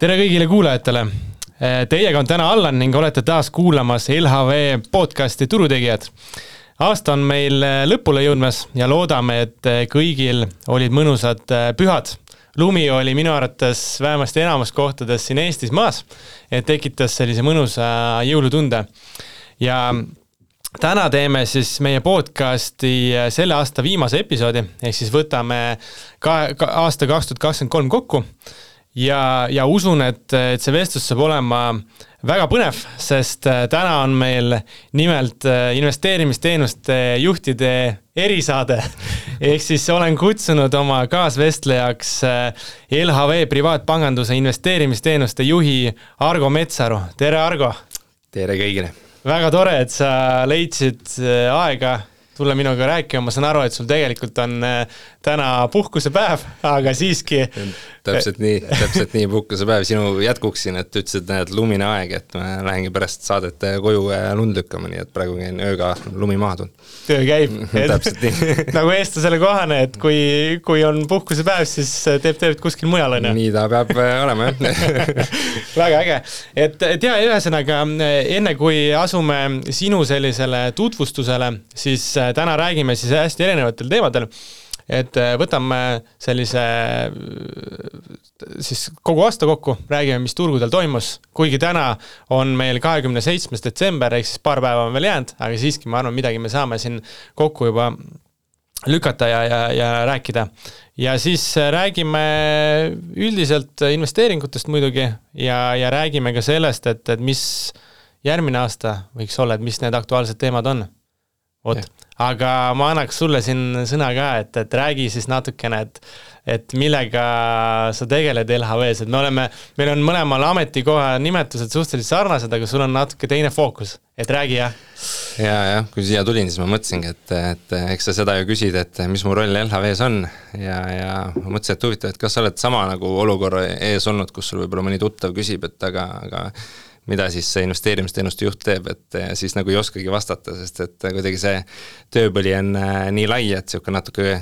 Tere kõigile kuulajatele. Teiega on täna Allan ning olete taas kuulamas LHV podcasti Turutegijad. Aasta on meil lõpule jõudmas ja loodame, et kõigil olid mõnusad pühad. Lumi oli minu arvates vähemasti enamus kohtades siin Eestis maas, et tekitas sellise mõnusa jõulutunde. Ja täna teeme siis meie podcasti selle aasta viimase episoodi, ehk siis võtame aasta 2023 kokku. Ja usun, et see vestlus saab olema väga põnev, sest täna on meil nimelt investeerimisteenuste juhtide erisaade. Ehk siis olen kutsunud oma kaasvestlejaks LHV privaatpanganduse investeerimisteenuste juhi Argo Metsaru. Tere, Argo! Tere kõigile! Väga tore, et sa leidsid aega tulla minuga rääkima. Ma saan aru, et sul tegelikult on täna puhkusepäev, aga siiski... Täpselt nii puhkusepäev sinu jätkuksin, et ütlesid, et lumine aeg, et ma lähengi pärast saadet koju lund lükkama, nii et praegu käin ööga lumi maha tund. Töö käib. Täpselt nii. Nagu eestlasele kohane, et kui on puhkusepäev, siis teeb kuskil mujal. On, nii ta peab olema, jah. Väga äge. Et ühesõnaga, enne kui asume sinu sellisele tutvustusele, siis täna räägime siis hästi erinevatel teemadel. Et võtame sellise siis kogu aasta kokku, räägime, mis turgudel toimus, kuigi täna on meil 27. detsember, ehk siis paar päeva on veel jäänud, aga siiski ma arvan, midagi me saame siin kokku juba lükata ja rääkida. Ja siis räägime üldiselt investeeringutest muidugi ja räägime ka sellest, et mis järgmine aasta võiks olla, et mis need aktuaalsed teemad on. Aga ma annaks sulle siin sõna ka, et räägi siis natukene, et millega sa tegeled LHV-s, et meil on mõlemal ametikoha nimetused suhteliselt sarnased, aga sul on natuke teine fookus, et räägi jah. Ja, kui siia tulin, siis ma mõtlesingi, et eks sa seda ju küsid, et mis mu roll LHV-s on ja ma mõtlesin, et huvitav, et kas sa oled sama nagu olukorra ees olnud, kus sul võib-olla mõni tuttav küsib, et aga mida siis see investeerimisteenuste juht teeb, et siis nagu ei oskagi vastata, sest et kuidagi see tööpõli on nii lai, et siuke natuke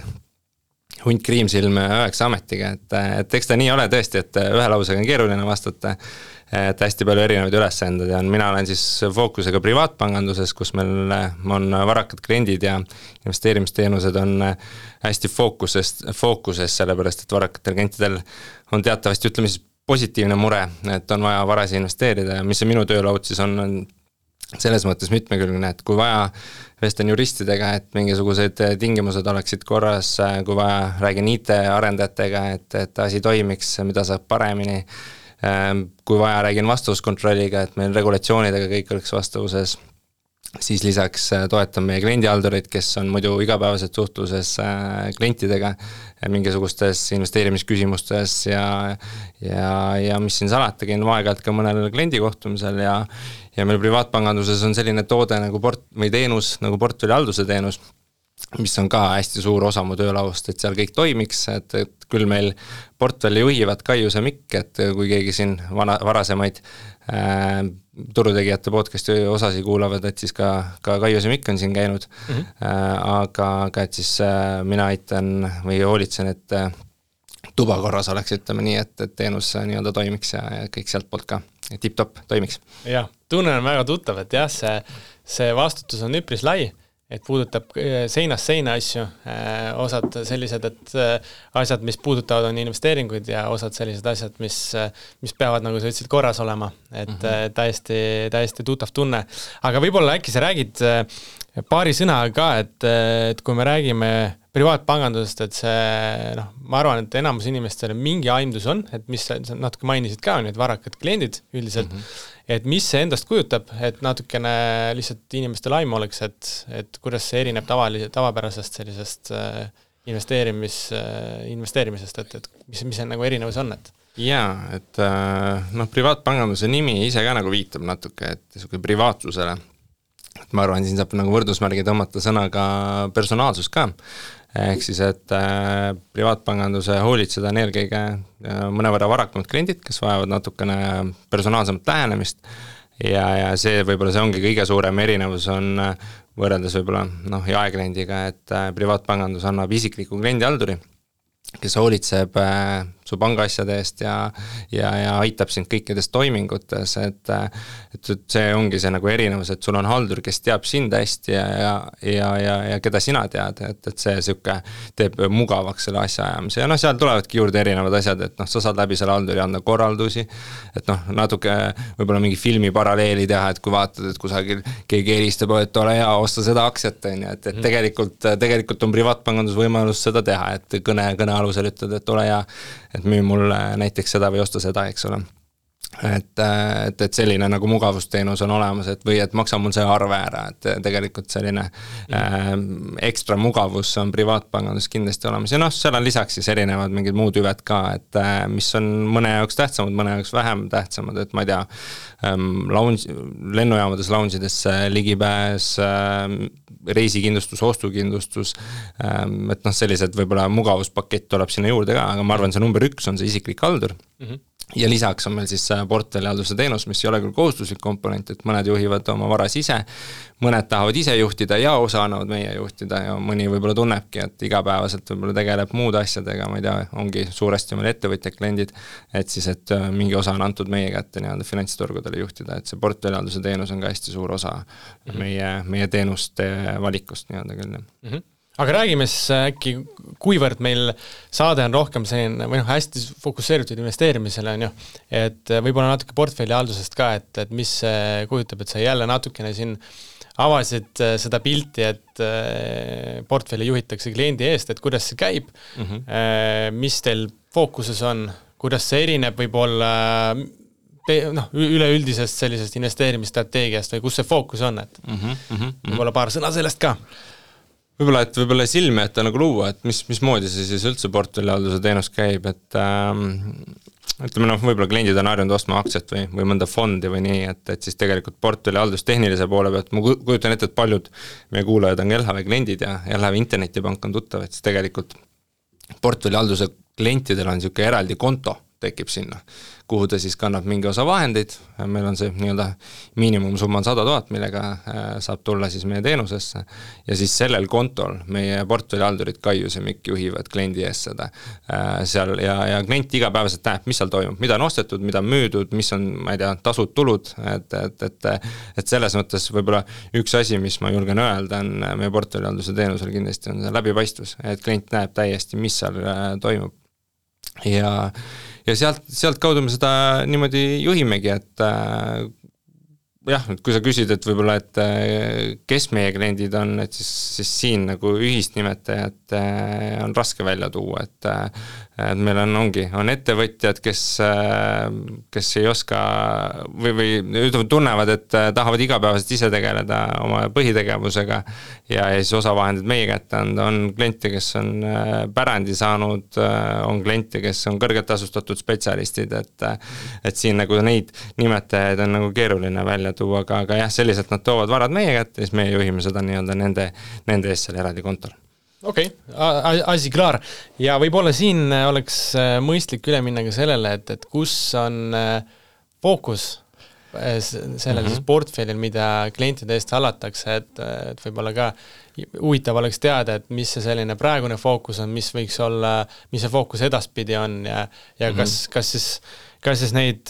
hunt kriimsilm 9 ametiga, et eks ta nii ole tõesti, et ühe lausega on keeruline vastata, et hästi palju erinevaid ülesanded ja mina olen siis fookusega privaatpanganduses, kus meil on varakad kliendid ja investeerimisteenused on hästi fookuses, sellepärast et varakatel klientidel on teatavasti, ütleme siis positiivne mure, et on vaja varasi investeerida ja mis see minu töölaud siis on selles mõttes mitmekülgne, et kui vaja vestlen juristidega, et mingisugused tingimused oleksid korras, kui vaja räägin IT-arendajatega, et asi toimiks, mida saab paremini, kui vaja räägin vastavuskontrolliga, et meil regulatsioonidega kõik oleks vastavuses, siis lisaks toetan meie kliendihaldurid, kes on muidu igapäevaselt suhtluses klientidega mingisugustes investeerimisküsimustes ja mis siin salata, käin aeg-ajalt ka mõnel kliendikohtumisel ja meil privaatpanganduses on selline toode nagu teenus, nagu portfellihalduse teenus, mis on ka hästi suur osa mu töölaust, et seal kõik toimiks, et küll meil portfelli juhivad Kaijus ja Mikk, et kui keegi siin varasemaid turutegijate podcasti osasi kuulavad, et siis ka Kaijus ja Mikk on siin käinud, aga et siis mina aitan või hoolitsen, et tuba korras oleks, ütleme nii, et teenus nii-öelda toimiks ja kõik sealt poolt ka tip-top toimiks. Jah, tunne on väga tuttav, et jah, see vastutus on üpris lai, et puudutab seinast seina asju, osad sellised, et asjad, mis puudutavad on investeeringuid ja osad sellised asjad, mis peavad, nagu sa ütlesid, korras olema, et täiesti tuttav tunne. Aga võib-olla äkki sa räägid paari sõna ka, et kui me räägime privaatpangandusest, et see, ma arvan, et enamus inimestel mingi aimdus on, et mis sa natuke mainisid ka, need varakad kliendid üldiselt, et mis see endast kujutab, et natukene lihtsalt inimestel aim oleks, et kuidas see erineb tavapärasest sellisest investeerimisest, et mis see nagu erinevus on, et? Jaa, et privaatpanganduse nimi ise ka nagu viitab natuke, et privaatsusele. Et ma arvan, siin saab nagu võrdusmärgi tõmmata sõnaga personaalsus ka. Ehk siis, et privaatpanganduse hoolitseda on eelkõige mõnevõrra varakamad kliendid, kes vajavad natukene personaalsemat lähenemist ja see võib-olla see ongi kõige suurem erinevus on võrreldes võib-olla jaekliendiga, et privaatpangandus annab isikliku kliendihalduri, kes hoolitseb su pangaasjade eest ja aitab sind kõikides toimingutes, et see ongi see nagu erinevus, et sul on haldur, kes teab sind hästi ja keda sina tead, et see siuke teeb mugavaks selle asja ajamise ja seal tulevadki juurde erinevad asjad, et sa saad läbi selle halduri anda korraldusi, et natuke võib-olla mingi filmi paralleeli teha, et kui vaatad, et kusagil keegi helistab, et ole hea, osta seda aktsiat, et tegelikult on privaatpangandus võimalus seda teha, et kõne alusel ütled, et ole hea, et müü mulle näiteks seda või osta seda, eks ole. Et selline nagu mugavusteenus on olemas, et või et maksa mul see arve ära, et tegelikult selline ekstra mugavus on privaatpangandus kindlasti olemas ja seal on lisaks siis erinevad mingid muud hüved ka, et mis on mõne jaoks tähtsamad, mõne jaoks vähem tähtsamad, et ma ei tea, lennujaamades lounge'idesse ligipääs, reisikindlustus, ostukindlustus, et sellised võib-olla mugavuspakett tuleb sinna juurde ka, aga ma arvan, see number 1 on see isiklik haldur. Ja lisaks on meil siis portfellihalduse teenus, mis ei ole küll kohustuslik komponent, et mõned juhivad oma varas ise, mõned tahavad ise juhtida ja osa annavad meie juhtida ja mõni võib-olla tunnebki, et igapäevaselt võib-olla tegeleb muude asjadega, ma ei tea, ongi suuresti meil ettevõtjad, kliendid, et siis, et mingi osa on antud meie kätte finantsturgudele juhtida, et see portfellihalduse teenus on ka hästi suur osa meie teenuste valikust küll. Aga räägime siis äkki, kuivõrd meil saade on rohkem selline, või hästi fokusseeritud investeerimisele on ju, et võib-olla natuke portfelli haldusest ka, et mis kujutab, et sa jälle natukene siin avasid seda pilti, et portfelli juhitakse kliendi eest, et kuidas see käib, mis teil fookuses on, kuidas see erineb võib-olla üleüldisest sellisest investeerimisstrateegiast või kus see fookus on, et võib-olla paar sõna sellest ka. Võib-olla silme, et nagu luua, et mismoodi see siis üldse portfellihalduse teenus käib, et ütleme võib-olla kliendid on harjunud ostma aktsiat või mõnda fondi või nii, et siis tegelikult portfellihaldus tehnilise poole pealt, ma kujutan ette, et paljud meie kuulajad on LHV kliendid ja LHV internetipank on tuttav, et siis tegelikult portfellihalduse klientidel on niisugune eraldi konto tekib sinna, kuhu ta siis kannab mingi osa vahendeid, meil on see miinimumsumma on 100 000, millega saab tulla siis meie teenusesse ja siis sellel kontol meie portfellihaldurid Kaius ja Mikk juhivad kliendi ees seda seal ja klient igapäevaselt näeb, mis seal toimub, mida on ostetud, mida on müüdud, mis on, ma ei tea, tasud, tulud, et selles mõttes võib-olla üks asi, mis ma julgen öelda, on meie portfellihalduse teenusel kindlasti on see läbipaistvus, et klient näeb täiesti, mis seal toimub ja sealt kaudu me seda niimoodi juhimegi, et kui sa küsid, et võib-olla, et kes meie kliendid on, et siis siin nagu ühist nimetajat on raske välja tuua, et meil on ettevõtjad, kes ei oska või tunnevad, et tahavad igapäevaselt ise tegeleda oma põhitegevusega ja siis osa vahendid meie kätte anda, on kliente, kes on pärandi saanud, on kliente, kes on kõrgelt tasustatud spetsialistid, et siin nagu neid nimetajaid on nagu keeruline välja tuua, aga jah, selliselt nad toovad varad meie kätte ja siis meie juhime seda nende eest seal eraldi kontol. Okei, asi klaar. Ja võib-olla siin oleks mõistlik üle minna ka sellele, et kus on fookus sellel siis portfellil, mida klientide eest hallatakse, et võib-olla ka huvitav oleks teada, et mis see selline praegune fookus on, mis võiks olla, mis see fookus edaspidi on ja kas siis neid,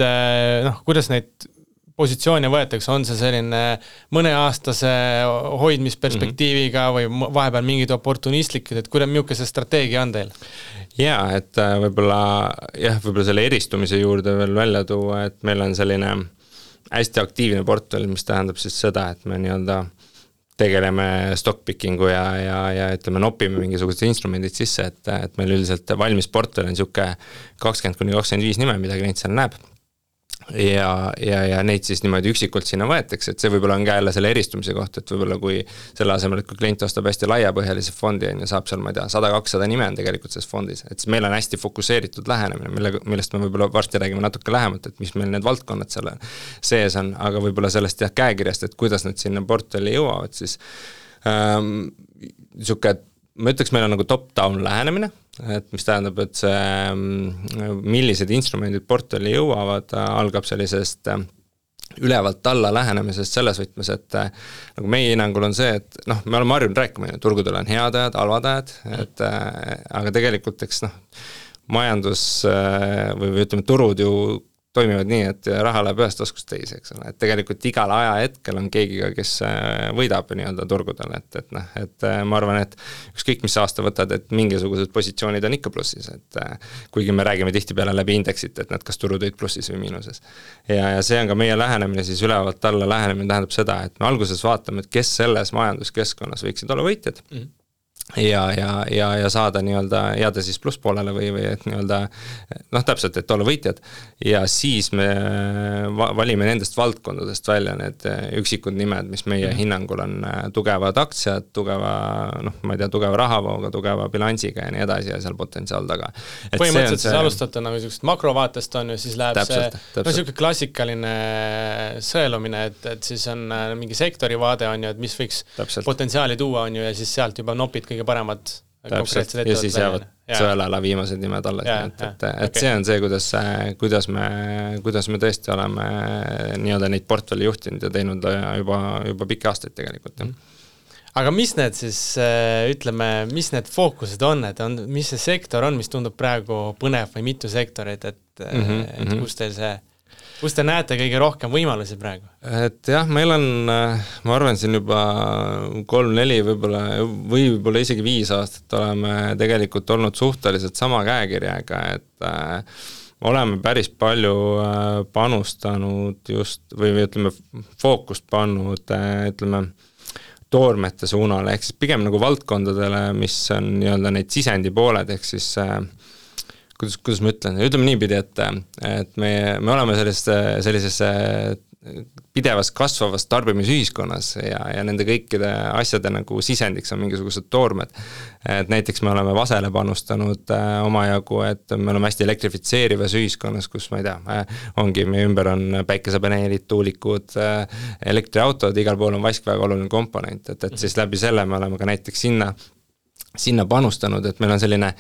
kuidas neid positsioone võetakse, on see selline mõneaastase hoidmisperspektiiviga või vahepeal mingid oportunistlikud, et milline see strateegia on teil? Jaa, et võib-olla selle eristumise juurde veel välja tuua, et meil on selline hästi aktiivne portfell, mis tähendab siis seda, et me tegeleme stockpickingu ja ütleme, nopime mingisugused instrumendid sisse, et meil üldiselt valmis portfell on niisugune 20-25 nime, mida klient seal näeb. Ja neid siis niimoodi üksikult sinna võetakse, et see võib-olla on ka jälle selle eristumise koht, et võib-olla kui selle asemel, et kui klient ostab hästi laiapõhjalise fondi ja saab seal, ma ei tea, 100-200 nime on tegelikult selles fondis, et siis meil on hästi fokuseeritud lähenemine, millest me võib-olla varsti räägime natuke lähemalt, et mis meil need valdkonnad selle sees on, aga võib-olla sellest käekirjast, et kuidas nad sinna portfelli jõuavad, siis ma ütleks, meil on nagu top-down lähenemine, et mis tähendab, et see, millised instrumendid portfelli jõuavad, algab sellisest ülevalt alla lähenemisest selles võtmes, et nagu meie hinnangul on see, et me oleme harjunud rääkima, turgudel on head ajad, halvad ajad, aga tegelikult eks majandus või ütleme, turud ju toimivad nii, et raha läheb ühest taskust teise, eks ole, et tegelikult igal ajahetkel on keegi ka, kes võidab nii-öelda turgudel, et ma arvan, et ükskõik mis aasta võtad, et mingisugused positsioonid on ikka plussis, et kuigi me räägime tihtipeale läbi indeksit, et nad kas turud olid plussis või miinuses. Ja see on ka meie lähenemine, siis ülevalt alla lähenemine tähendab seda, et me alguses vaatame, et kes selles majanduskeskkonnas võiksid olla võitjad, ja saada nii-öelda jääda siis plusspoolele või et nii-öelda täpselt, et olla võitjad ja siis me valime nendest valdkondadest välja need üksikud nimed, mis meie hinnangul on tugevad aktsiad, ma ei tea, tugeva rahavooga, tugeva bilansiga ja nii edasi ja seal potentsiaal taga. Põhimõtteliselt siis alustate nagu sellisest makrovaatest on ju, siis läheb täpselt. Selline klassikaline sõelumine, et siis on mingi sektori vaade on ju, et mis võiks potentsiaali tuua on ju ja siis sealt juba nopid kõige paremad konkreetsed ja siis jäävad sõelala viimased nimed alles, et see on see, kuidas me tõesti oleme nii-öelda neid portfelli juhtinud ja teinud juba pikki aastaid tegelikult. Aga mis need siis, ütleme, mis need fookused on, mis see sektor on, mis tundub praegu põnev või mitu sektorit, et kus te näete kõige rohkem võimalusi praegu? Et jah, meil on, ma arvan, siin juba 3-4 võib-olla isegi 5 aastat oleme tegelikult olnud suhteliselt sama käekirjaga, et oleme päris palju panustanud just, või ütleme, fookust pannud, ütleme, toormete suunale, ehk siis pigem nagu valdkondadele, mis on nii-öelda neid sisendi pooled, ehk siis kuidas ma ütlen, ütleme niipidi, et me oleme sellises pidevas kasvavas tarbimisühiskonnas ja nende kõikide asjade nagu sisendiks on mingisugused toormed. Et näiteks me oleme vasele panustanud omajagu, et me oleme hästi elektrifitseerivas ühiskonnas, kus ma ei tea, ongi meie ümber on päikesepaneelid, tuulikud, elektriautod, igal pool on vask väga oluline komponent, et siis läbi selle me oleme ka näiteks sinna panustanud, et meil on selline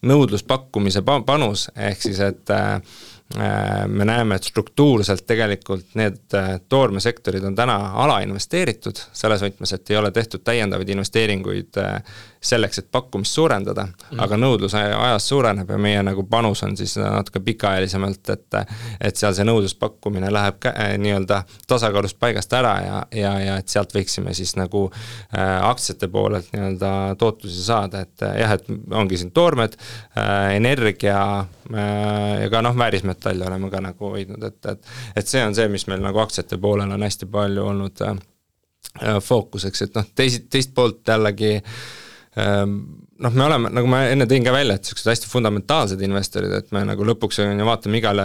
nõudluspakkumise panus, ehk siis, et me näeme, et struktuurselt tegelikult need toormesektorid on täna alainvesteeritud, selles võtmes, et ei ole tehtud täiendavaid investeeringuid selleks, et pakkumist suurendada, aga nõudlus ajas suureneb ja meie nagu panus on siis natuke pikaajalisemalt, et seal see nõudluspakkumine läheb nii-öelda tasakaalust paigast ära ja et sealt võiksime siis nagu aktsiate poolelt nii-öelda tootlusi saada, et jah, et ongi siin toormed, energia ja ka väärismetalle oleme ka nagu hoidnud, et see on see, mis meil nagu aktsiate poolel on hästi palju olnud fookuseks, et teist poolt jällegi me oleme, nagu ma enne tõin ka välja, et sellised hästi fundamentaalsed investorid, et me nagu lõpuks vaatame igale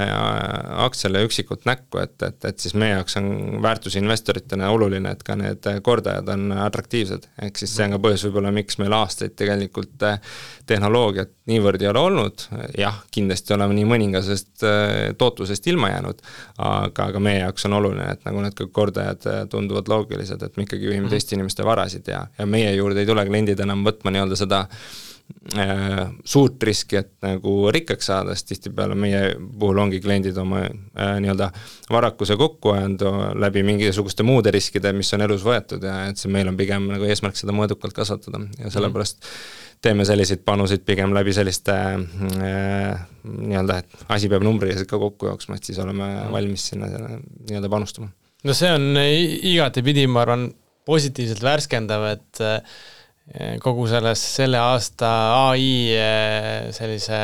aktsiale üksikult näkku, et siis meie jaoks on väärtusinvestoritena oluline, et ka need kordajad on atraktiivsed, ehk siis see on ka põhjus võib-olla, miks meil aastaid tegelikult tehnoloogiat niivõrd ei ole olnud, jah, kindlasti oleme nii mõningasest tootlusest ilma jäänud, aga meie jaoks on oluline, et nagu need kordajad tunduvad loogilised, et me ikkagi juhime teiste inimeste varasid ja meie juurde ei tule kliendid enam võtma nii-öelda seda suurt riski, et nagu rikkaks saada, sest tihtipeale meie puhul ongi kliendid oma nii-öelda varakuse kokku ajanud läbi mingisuguste muude riskide, mis on elus võetud ja et see meil on pigem nagu eesmärk seda mõõdukalt kasvatada ja sellepärast teeme selliseid panuseid pigem läbi selliste nii-öelda, et asi peab numbriliselt ka kokku jooksma, et siis oleme valmis sinna nii-öelda panustama. No see on igatepidi, ma arvan, positiivselt värskendav, et kogu selle aasta AI sellise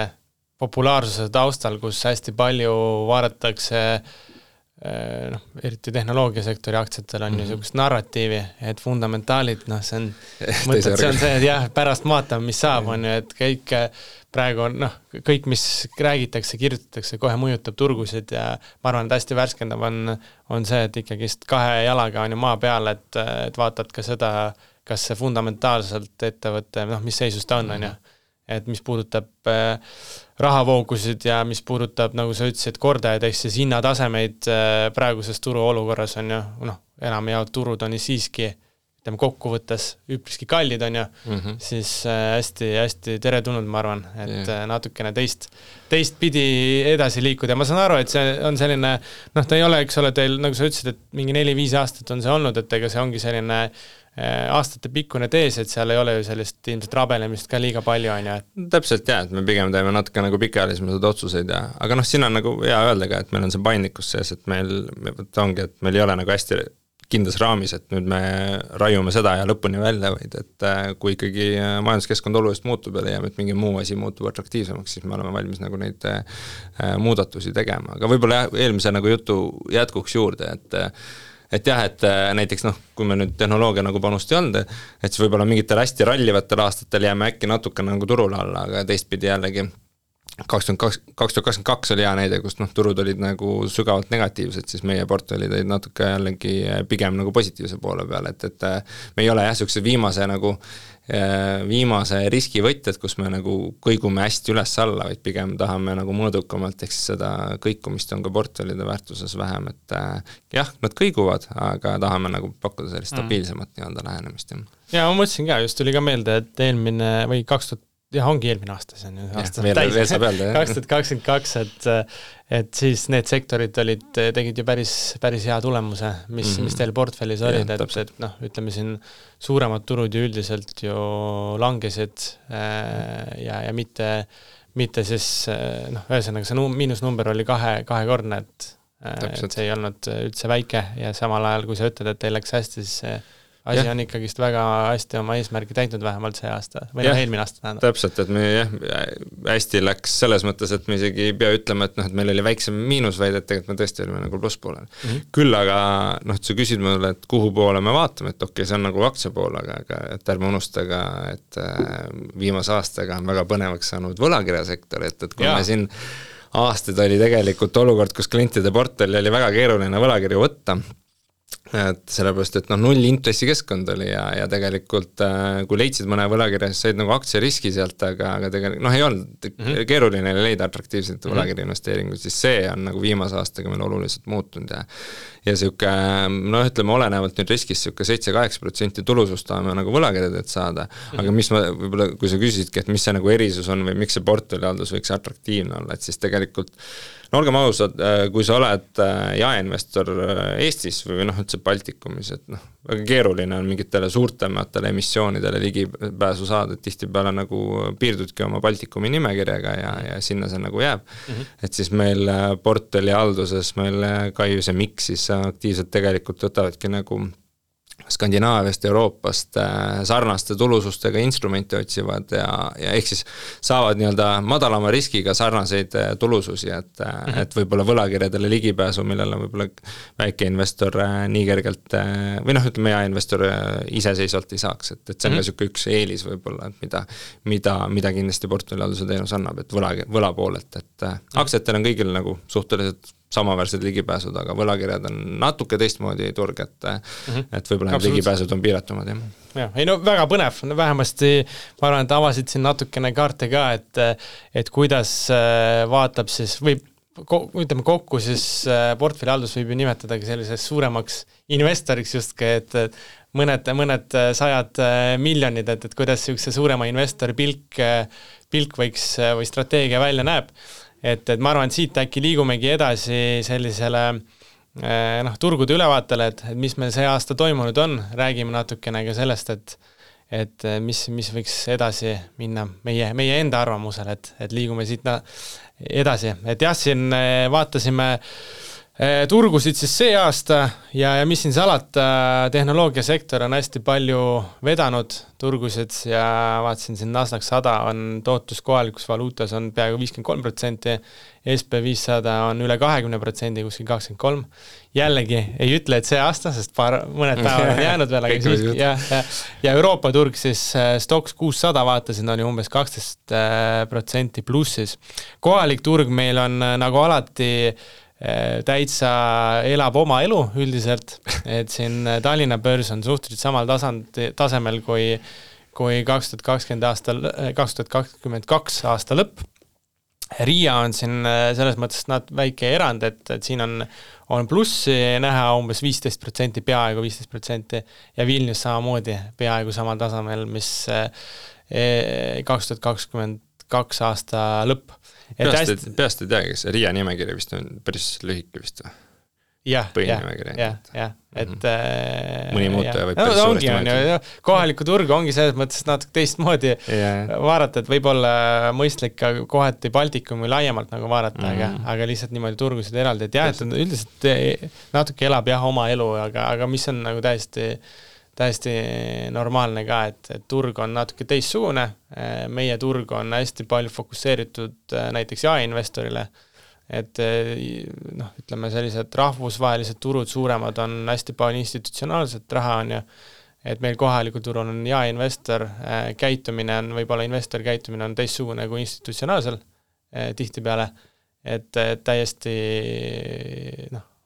populaarsuse taustal, kus hästi palju vaadatakse eriti tehnoloogiasektori aktsiatel on ju niisugust narratiivi, et fundamentaalid, see on see, et jah, pärast vaatame, mis saab, on ju, et kõik praegu on, kõik, mis räägitakse, kirjutatakse, kohe mõjutab turgusid ja ma arvan, et hästi värskendav on see, et ikkagi 2 jalaga on ju maa peal, et vaatad ka seda, kas see fundamentaalselt ettevõte, mis seisus ta on ju. Et mis puudutab rahavoogusid ja mis puudutab, nagu sa ütlesid, kordajaid, ehk siis hinnatasemeid praeguses turu olukorras on ju, enamjaolt turud on siiski, ütleme kokkuvõttes üpriski kallid on ju, siis hästi teretulnud, ma arvan, et natukene teist pidi edasi liikuda ja ma saan aru, et see on selline, ta ei ole, eks ole, teil, nagu sa ütlesid, et mingi 4-5 aastat on see olnud, et ega see ongi selline aastate pikkune tees, et seal ei ole ju sellist ilmselt rabelemist ka liiga palju, on ju. Täpselt jah, et me pigem teeme natuke nagu pikaajalisemaid otsuseid aga siin on nagu hea öelda ka, et meil on see paindlikkus sees, et meil ongi, et meil ei ole nagu hästi kindlas raamis, et nüüd me raiume seda ja lõpuni välja, vaid et kui ikkagi majanduskeskkond oluliselt muutub ja leiame, et mingi muu asi muutub atraktiivsemaks, siis me oleme valmis nagu neid muudatusi tegema. Aga võib-olla eelmise nagu jutu jätkuks juurde, et jah, et näiteks kui me nüüd tehnoloogia nagu panust ei olnud, et siis võib-olla mingitel hästi rallivatel aastatel jääme äkki natuke nagu turule alla, aga teistpidi jällegi 2022 oli hea näide, kus turud olid nagu sügavalt negatiivsed, siis meie portfellid olid natuke jällegi pigem nagu positiivse poole peal, et me ei ole jah, selline viimase riskivõtjad, kus me nagu kõigume hästi üles-alla, vaid pigem tahame nagu mõõdukamalt, eks seda kõikumist on ka portfellide väärtuses vähem, et jah, nad kõiguvad, aga tahame nagu pakkuda sellist stabiilsemat nii-öelda lähenemist. Ja ma mõtlesin ka, just tuli ka meelde, et eelmine või 2000 jah, ongi eelmine aasta, see on aasta täis, 2022, et siis need sektorid tegid ju päris hea tulemuse, mis teil portfellis olid, et ütleme siin suuremad turud ju üldiselt ju langesid ja mitte siis, ühesõnaga see miinusnumber oli kahekordne, et see ei olnud üldse väike ja samal ajal, kui sa ütled, et teil läks hästi, siis asi on ikkagist väga hästi oma eesmärgi täitnud vähemalt see aasta, või eelmine aasta tähendab. Täpselt, et me hästi läks selles mõttes, et me isegi ei pea ütlema, et meil oli väiksem miinus, vaid et tegelikult me tõesti olime nagu plusspoolel. Küll aga, sa küsid mulle, et kuhu poole me vaatame, et okei, see on nagu aktsia pool, aga et ärme unustaga, et viimase aastaga on väga põnevaks saanud võlakirjasektor, et kui me siin aastaid oli tegelikult olukord, kus klientide portfelli oli väga keeruline võlakirju võtta, et sellepärast, et null intressi keskkond oli ja tegelikult kui leidsid mõne võlakirja, siis said nagu aktsiariski sealt, aga tegelikult ei olnud keeruline leida atraktiivselt võlakirja investeeringuid, siis see on nagu viimase aastaga meil oluliselt muutunud ja siuke, ütleme olenevalt nüüd riskist siuke 7-8% tulusust tahame nagu võlakirjadelt saada, aga mis ma võib-olla, kui sa küsisidki, et mis see nagu erisus on või miks see portfellihaldus võiks atraktiivne olla, et siis tegelikult olgem ausad, kui sa oled jaeinvestor Eestis või üldse Baltikumis, et väga keeruline on mingitele suurtematele emissioonidele ligipääsu saada, et tihtipeale nagu piirdudki oma Baltikumi nimekirjaga ja sinna see nagu jääb. Et siis meil portfellihalduses meil Kaius ja Miks siis aktiivselt tegelikult võtavadki nagu Skandinaaviast, Euroopast sarnaste tulusustega instrumente otsivad ja ehk siis saavad nii-öelda madalama riskiga sarnaseid tulususi, et võib-olla võlakirjadele ligipääsu, millele võib-olla väike investor nii kergelt või ütleme jaeinvestor iseseisvalt ei saaks, et see on ka siuke üks eelis võib-olla, mida kindlasti portfellihalduse teenus annab, et võla poolelt, et aktsiatel on kõigil nagu suhteliselt samaväärsed ligipääsud, aga võlakirjad on natuke teistmoodi turg, et võib-olla need ligipääsud on piiratumad. Väga põnev, vähemasti ma arvan, et avasid siin natukene kaarte ka, et kuidas vaatab siis, või ütleme kokku siis portfellihaldus võib ju nimetadagi selliseks suuremaks investoriks justki, et mõned sajad miljonid, et kuidas see suurema investori pilk võiks või strateegia välja näeb. Et ma arvan, et siit äkki liigumegi edasi sellisele turgude ülevaatele, et mis meil see aasta toimunud on, räägime natukene ka sellest, et mis võiks edasi minna meie enda arvamusel, et liigume siit edasi. Et jah, siin vaatasime turgusid siis see aasta ja mis siin salata, tehnoloogiasektor on hästi palju vedanud turgusid ja vaatasin siin Nasdaq 100 on tootlus kohalikus valuutas on peaaegu 53%, SP500 on üle 20%, kuskil 23%. Jällegi ei ütle, et see aasta, sest mõned päevad on jäänud veel, aga siiski, ja Euroopa turg siis Stoxx 600 vaatasin, oli umbes 12% plussis. Kohalik turg meil on nagu alati täitsa elab oma elu üldiselt, et siin Tallinna börs on suhteliselt samal tasemel kui 2022 aasta lõpp. Riia on siin selles mõttes väike erand, et siin on plussi näha umbes 15%, peaaegu 15% ja Vilnius samamoodi peaaegu samal tasemel, mis 2022 aasta lõpp. Peast ei tea, kes Riia nimekiri vist on päris lühike vist või? põhinimekiri. et mõni muutuja võib päris suuresti mõjutada. Kohalikku turgu ongi selles mõttes natuke teistmoodi vaadata, et võib-olla mõistlik ka kohati Baltikumi laiemalt nagu vaadata, aga lihtsalt niimoodi turgusid eraldi, et jah, et üldiselt natuke elab oma elu, aga mis on nagu täiesti normaalne ka, et turg on natuke teistsugune, meie turg on hästi palju fokusseeritud näiteks jaeinvestorile, et ütleme sellised rahvusvahelised turud suuremad on hästi palju institutsionaalset raha on ju, et meil kohalikul turul on jaeinvestor käitumine on, võib-olla investori käitumine on teistsugune kui institutsionaalsel tihtipeale, et täiesti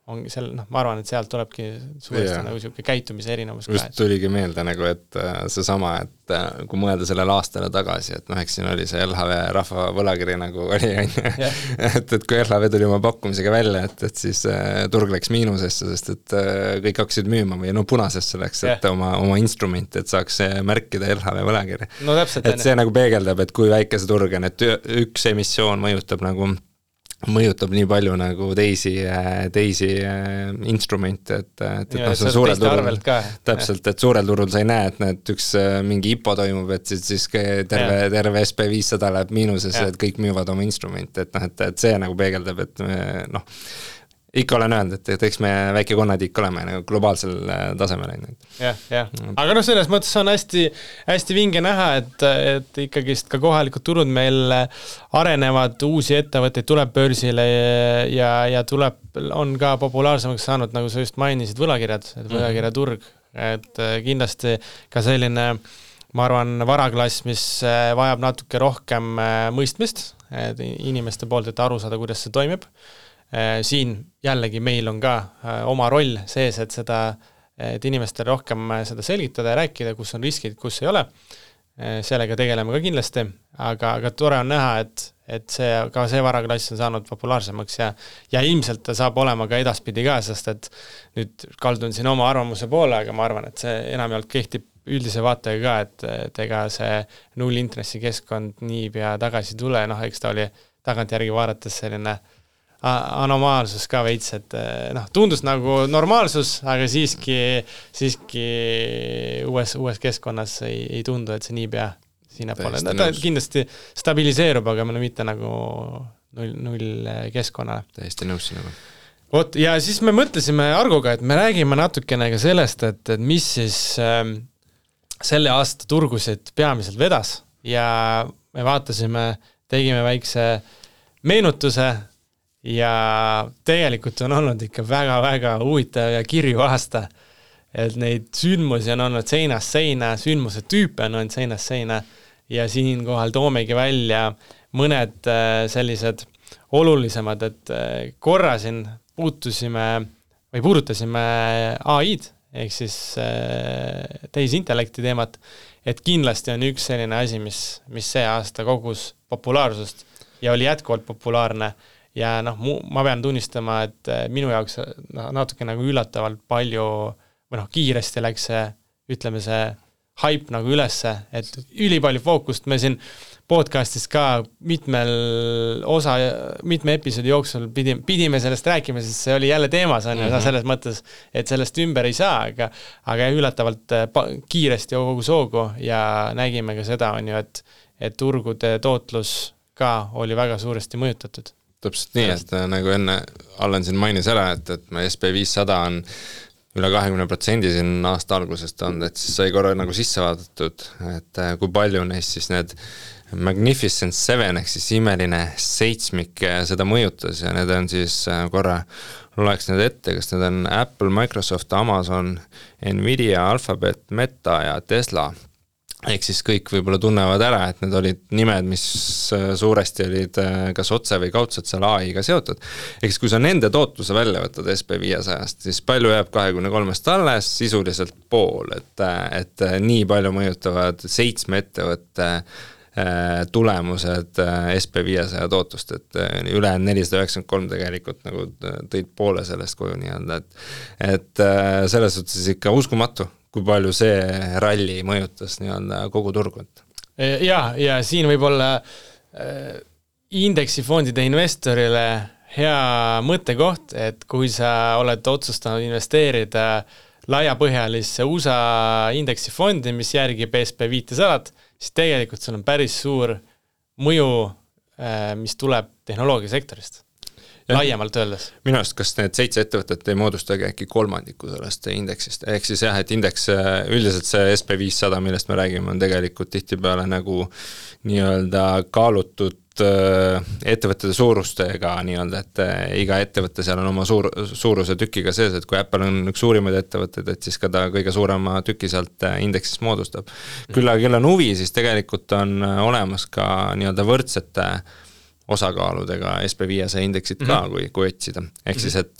ongi seal, ma arvan, et sealt tulebki suuresti nagu selline käitumise erinevus. Just tuligi meelde nagu, et seesama, et kui mõelda sellele aastale tagasi, et eks siin oli see LHV rahva võlakiri nagu oli, et kui LHV tuli oma pakkumisega välja, et siis turg läks miinusesse, sest et kõik hakkasid müüma või punasesse läks, et oma instrumenti, et saaks märkida LHV võlakiri. No täpselt. Et see nagu peegeldab, et kui väike see turg on, et üks emissioon mõjutab nii palju nagu teisi instrumente, et see suurel turul täpselt, et suurel turul sa ei näe, et üks mingi IPO toimub, et siis terve SP500 läheb miinusesse, et kõik müüvad oma instrumente, et see nagu peegeldab, et ikka olen öelnud, et eks me väike konnatiik oleme nagu globaalsel tasemel. Aga selles mõttes on hästi vinge näha, et ikkagist ka kohalikud turud meil arenevad, uusi ettevõtteid tuleb börsile ja on ka populaarsemaks saanud, nagu sa just mainisid, võlakirjad, et võlakirjaturg, et kindlasti ka selline, ma arvan, varaklass, mis vajab natuke rohkem mõistmist inimeste poolt, et aru saada, kuidas see toimib. Siin jällegi meil on ka oma roll sees, et inimestele rohkem seda selgitada ja rääkida, kus on riskid, kus ei ole. Sellega tegeleme ka kindlasti, aga tore on näha, et see varaklass on saanud populaarsemaks ja ilmselt ta saab olema ka edaspidi ka, sest et nüüd kaldun siin oma arvamuse poole, aga ma arvan, et see enamjaolt kehtib üldise vaatega ka, et ega see nullintressi keskkond niipea tagasi tule, eks ta oli tagantjärgi vaadates selline anomaalsus ka veits, et tundus nagu normaalsus, aga siiski uues keskkonnas ei tundu, et see niipea sinna pole. Ta kindlasti stabiliseerub, aga mitte nagu null keskkonnale. Täiesti nõus sinuga. Ja siis me mõtlesime Argoga, et me räägime natukene ka sellest, et mis siis selle aasta turgusid peamiselt vedas ja me vaatasime, tegime väikse meenutuse ja tegelikult on olnud ikka väga-väga huvitav ja kirju aasta, et neid sündmusi on olnud seinast seina, sündmuse tüüpe on olnud seinast seina ja siinkohal toomegi välja mõned sellised olulisemad, et korra siin puudutasime AI-d, ehk siis tehisintellekti teemat, et kindlasti on üks selline asi, mis see aasta kogus populaarsust ja oli jätkuvalt populaarne. Ja ma pean tunnistama, et minu jaoks natuke nagu üllatavalt palju või kiiresti läks see, ütleme see hype nagu ülesse, et ülipalju fookust me siin podcastis ka mitme episoodi jooksul pidime sellest rääkima, sest see oli jälle teemas on ja selles mõttes, et sellest ümber ei saa, aga üllatavalt kiiresti kogu soogu ja nägime ka seda on ju, et turgude tootlus ka oli väga suuresti mõjutatud. Täpselt nii, et nagu enne Allan siin mainis ära, et me SP500 on üle 20% siin aasta algusest olnud, et siis sai korra nagu sisse vaadatud, et kui palju neist siis need Magnificent Seven ehk siis imeline seitsmik seda mõjutas ja need on siis korra loeks need ette, kas need on Apple, Microsoft, Amazon, Nvidia, Alphabet, Meta ja Tesla. Ehk siis kõik võib-olla tunnevad ära, et need olid nimed, mis suuresti olid kas otse või kaudselt seal AI-ga seotud. Ehk siis kui sa nende tootluse välja võtad SP500-st, siis palju jääb 23-st alles, sisuliselt pool, et nii palju mõjutavad 7 ettevõtte tulemused SP500 tootlust, et üle 493 tegelikult nagu tõid poole sellest koju nii-öelda, et selles suhtes ikka uskumatu, kui palju see ralli mõjutas nii-öelda kogu turgut. Ja siin võib olla indeksifondide investorile hea mõttekoht, et kui sa oled otsustanud investeerida laiapõhjalisse USA indeksifondi, mis järgib SP500, siis tegelikult sul on päris suur mõju, mis tuleb tehnoloogiasektorist. Laiemalt öeldes. Minu arust, kas need 7 ettevõtet ei moodustagi äkki kolmandiku sellest indeksist, ehk siis jah, et indeks, üldiselt see SP500, millest me räägime, on tegelikult tihtipeale nagu nii-öelda kaalutud ettevõtete suurustega nii-öelda, et iga ettevõte seal on oma suuruse tükiga sees, et kui Apple on üks suurimaid ettevõtteid, et siis ka ta kõige suurema tüki sealt indeksist moodustab. Küll on huvi, siis tegelikult on olemas ka nii-öelda võrdsete osakaaludega SP500 indeksit ka, kui otsida. Ehk siis, et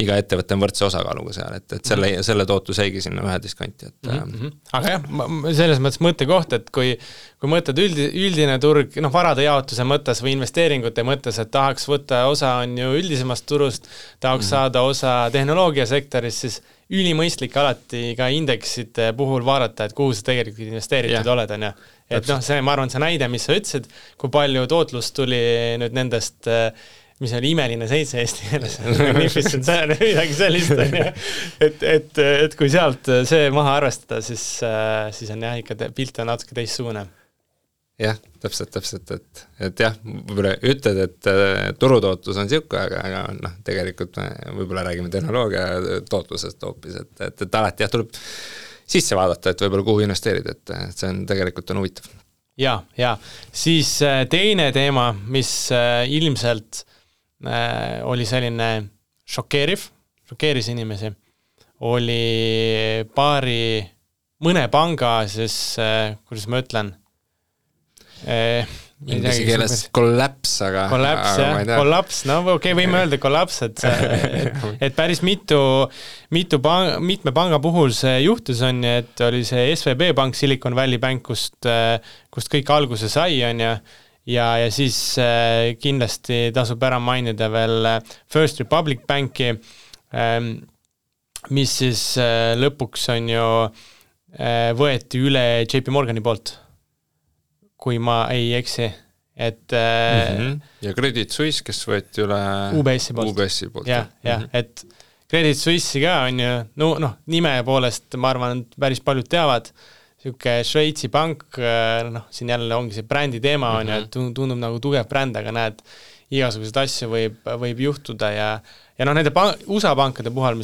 iga ettevõte on võrdse osakaaluga seal, et selle tootlus jäigi sinna ühe diskanti. Aga jah, selles mõttes mõttekoht, et kui mõtled üldine turg, varade jaotuse mõttes või investeeringute mõttes, et tahaks võtta osa on ju üldisemast turust, tahaks saada osa tehnoloogiasektorist, siis ülimõistlik alati ka indeksite puhul vaadata, et kuhu sa tegelikult investeeritud oled, on ju. Et see, ma arvan, see näide, mis sa ütlesid, kui palju tootlust tuli nüüd nendest, mis oli imeline 7 eesti keeles, midagi sellist, et kui sealt see maha arvestada, siis on jah, ikka pilt on natuke teistsugune. Jah, täpselt, et jah, võib-olla ütled, et turutootlus on siuke, aga tegelikult võib-olla räägime tehnoloogia tootlusest hoopis, et alati jah, tuleb sisse vaadata, et võib-olla kuhu investeerida, et see on tegelikult huvitav. Ja, siis teine teema, mis ilmselt oli selline šokeeris inimesi, oli mõne panga, siis kuidas ma ütlen, inglise keeles kollaps, aga kollaps, võime öelda kollaps, et päris mitme panga puhul see juhtus on, et oli see SVB Bank, Silicon Valley Bank, kust kõik alguse sai on ja siis kindlasti tasub ära mainida veel First Republic Banki, mis siis lõpuks on ju võeti üle JP Morgani poolt, kui ma ei eksi, et ja Credit Suisse, kes võeti üle UBS-i poolt. Et Credit Suisse'i ka on ju, nime poolest ma arvan, et päris paljud teavad, siuke Šveitsi pank, siin jälle ongi see brändi teema on ju, et tundub nagu tugev bränd, aga näed, igasuguseid asju võib juhtuda ja nende USA pankade puhul,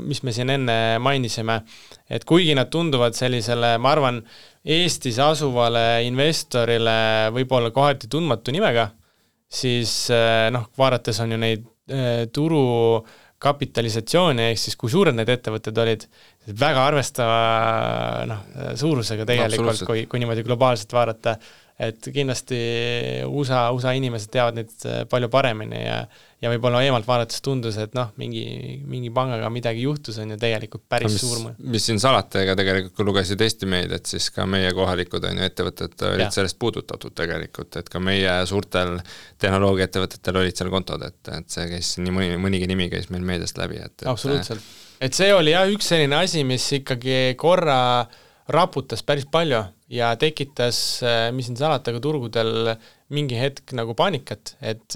mis me siin enne mainisime, et kuigi nad tunduvad sellisele, ma arvan, Eestis asuvale investorile võib-olla kohati tundmatu nimega, siis vaadates on ju neid turu kapitalisatsiooni, ehk siis kui suured need ettevõtted olid, väga arvestava suurusega tegelikult, kui niimoodi globaalselt vaadata, et kindlasti USA inimesed teavad neid palju paremini ja võib-olla eemalt vaadates tundus, et mingi pangaga midagi juhtus on ju tegelikult päris suur mõju. Mis siin salata, ega tegelikult kui lugesid Eesti meid, et siis ka meie kohalikud on ju ettevõtted olid sellest puudutatud tegelikult, et ka meie suurtel tehnoloogiaettevõtetel olid seal kontod, et see käis nii mõnigi nimi käis meil meediast läbi. Absoluutselt. Et see oli üks selline asi, mis ikkagi korra raputas päris palju ja tekitas, mis siin salata, ka turgudel mingi hetk nagu paanikat, et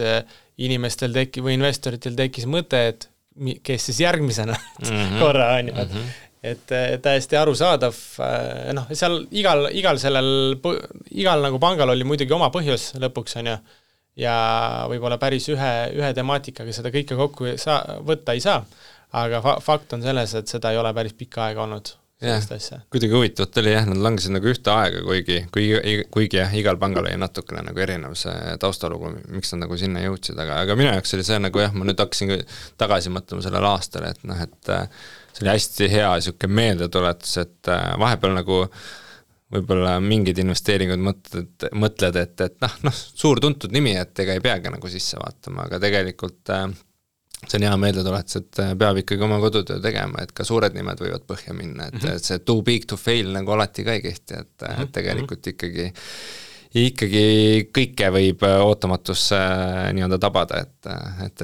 inimestel või investoritel tekkis mõte, et kes siis järgmisena korra on ju. Et täiesti arusaadav, seal igal nagu pangal oli muidugi oma põhjus lõpuks on ju, ja võib-olla päris ühe temaatikaga seda kõike kokku võtta ei saa, aga fakt on selles, et seda ei ole päris pikka aega olnud. Kuidagi huvitavat oli nad langesid nagu ühte aega, kuigi igal pangal oli natukene nagu erinev see taustalugu, miks nad nagu sinna jõudsid, aga minu jaoks oli see nagu ma nüüd hakkasin tagasi mõtlema sellel aastal, et see oli hästi hea siuke meeldetuletus, et vahepeal nagu võib-olla mingid investeeringud mõtled, et suur tuntud nimi, et ega ei peagi nagu sisse vaatama, aga tegelikult see on hea meeldetuletus, et peab ikkagi oma kodutöö tegema, et ka suured nimed võivad põhja minna, et see too big to fail nagu alati ka ei kehti, et tegelikult ikkagi kõike võib ootamatusse nii-öelda tabada, et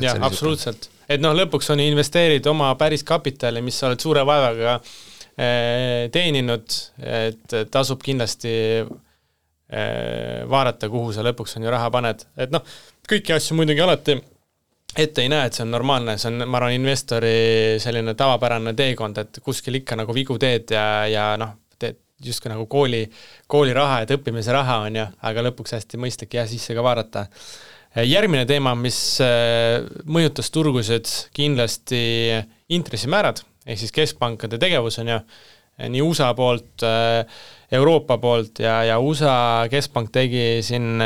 jah, absoluutselt. Et lõpuks on investeerid oma päris kapitali, mis sa oled suure vaevaga teeninud, et tasub kindlasti vaadata, kuhu sa lõpuks on ju raha paned. Et kõiki asju muidugi alati ette ei näe, et see on normaalne, see on, ma arvan, investori selline tavapärane teekond, et kuskil ikka nagu vigu teed ja noh, teed justkui nagu kooli raha, et õppimise raha on ju, aga lõpuks hästi mõistlik ja sisse ka vaadata. Järgmine teema, mis mõjutas turgusid, kindlasti intressimäärad, ehk siis keskpankade tegevus on ju, nii USA poolt, Euroopa poolt ja USA keskpank tegi siin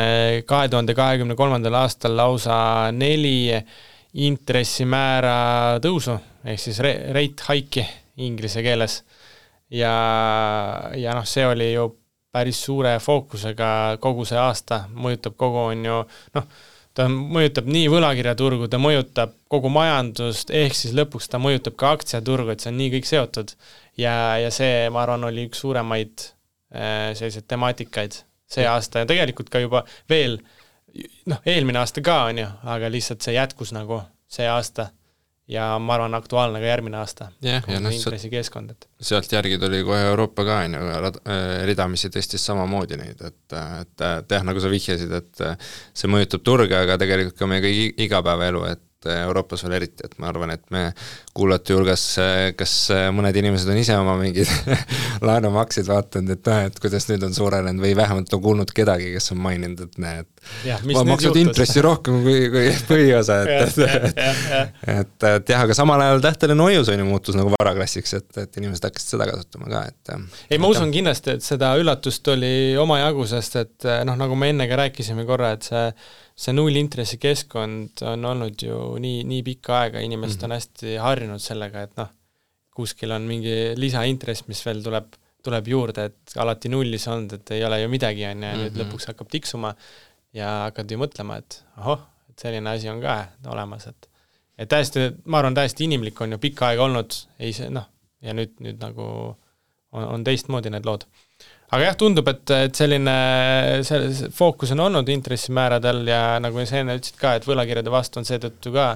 2023. aastal lausa 4 intressimäära tõusu, ehk siis rate hike'i inglise keeles. Ja noh, see oli ju päris suure fookusega kogu see aasta, mõjutab kogu on ju, noh, ta mõjutab nii võlakirjaturgu, ta mõjutab kogu majandust, ehk siis lõpuks ta mõjutab ka aktsiaturgu, et see on nii kõik seotud. Ja see, ma arvan, oli üks suuremaid sellised temaatikaid see aasta ja tegelikult ka juba veel, noh, eelmine aasta ka on ju, aga lihtsalt see jätkus nagu see aasta ja ma arvan aktuaalne ka järgmine aasta. Ja intressikeskkond. Sealt järgi tuli kohe Euroopa ka, ridamisi tõstis samamoodi neid, et nagu sa vihjasid, et see mõjutab turge, aga tegelikult ka meie kõigi igapäevaelu, et Euroopas veel eriti, et ma arvan, et me kuulate julges, kas mõned inimesed on ise oma mingid laenumaksid vaatanud, et kuidas nüüd on suurenenud või vähemalt on kuulnud kedagi, kes on maininud, et näed, ma maksud intressi rohkem kui põhiosa, et jah, aga samal ajal tähteline hoius on ju muutus nagu varaklassiks, et inimesed hakkasid seda kasutama ka, et ei, ma usun kindlasti, et seda üllatust oli omajagu, sest et noh, nagu me enne ka rääkisime korra, et see nullintressi keskkond on olnud ju nii pikka aega, inimesed on hästi harjunud sellega, et noh, kuskil on mingi lisaintress, mis veel tuleb juurde, et alati nullis on, et ei ole ju midagi on ja nüüd lõpuks hakkab tiksuma ja hakkad ju mõtlema, et et selline asi on ka olemas, et täiesti, ma arvan, täiesti inimlik on ju pikka aega olnud, ei see, noh, ja nüüd nagu on teistmoodi need lood. Aga jah, tundub, et selline fookus on olnud intressimääradel ja nagu sa enne ütlesid ka, et võlakirjade vastu on seetõttu ka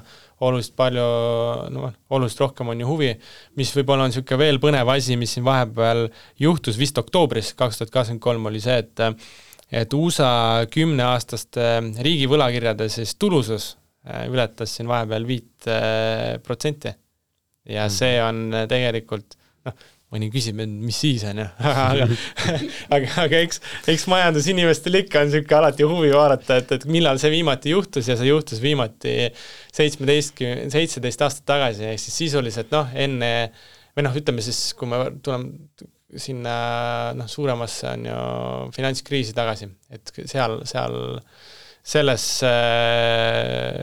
oluliselt rohkem on ju huvi, mis võib-olla on niisugune veel põnev asi, mis siin vahepeal juhtus vist oktoobris 2023 oli see, et USA 10-aastaste riigi võlakirjade siis tulusus ületas siin vahepeal 5% ja see on tegelikult, noh, mõni küsib, mis siis on ju, aga eks majandusinimestel ikka on niisugune alati huvi vaadata, et millal see viimati juhtus ja see juhtus viimati 17 aastat tagasi, ehk siis sisuliselt noh, enne, või noh, ütleme siis, kui me tuleme sinna suuremasse on ju finantskriisi tagasi, et seal selles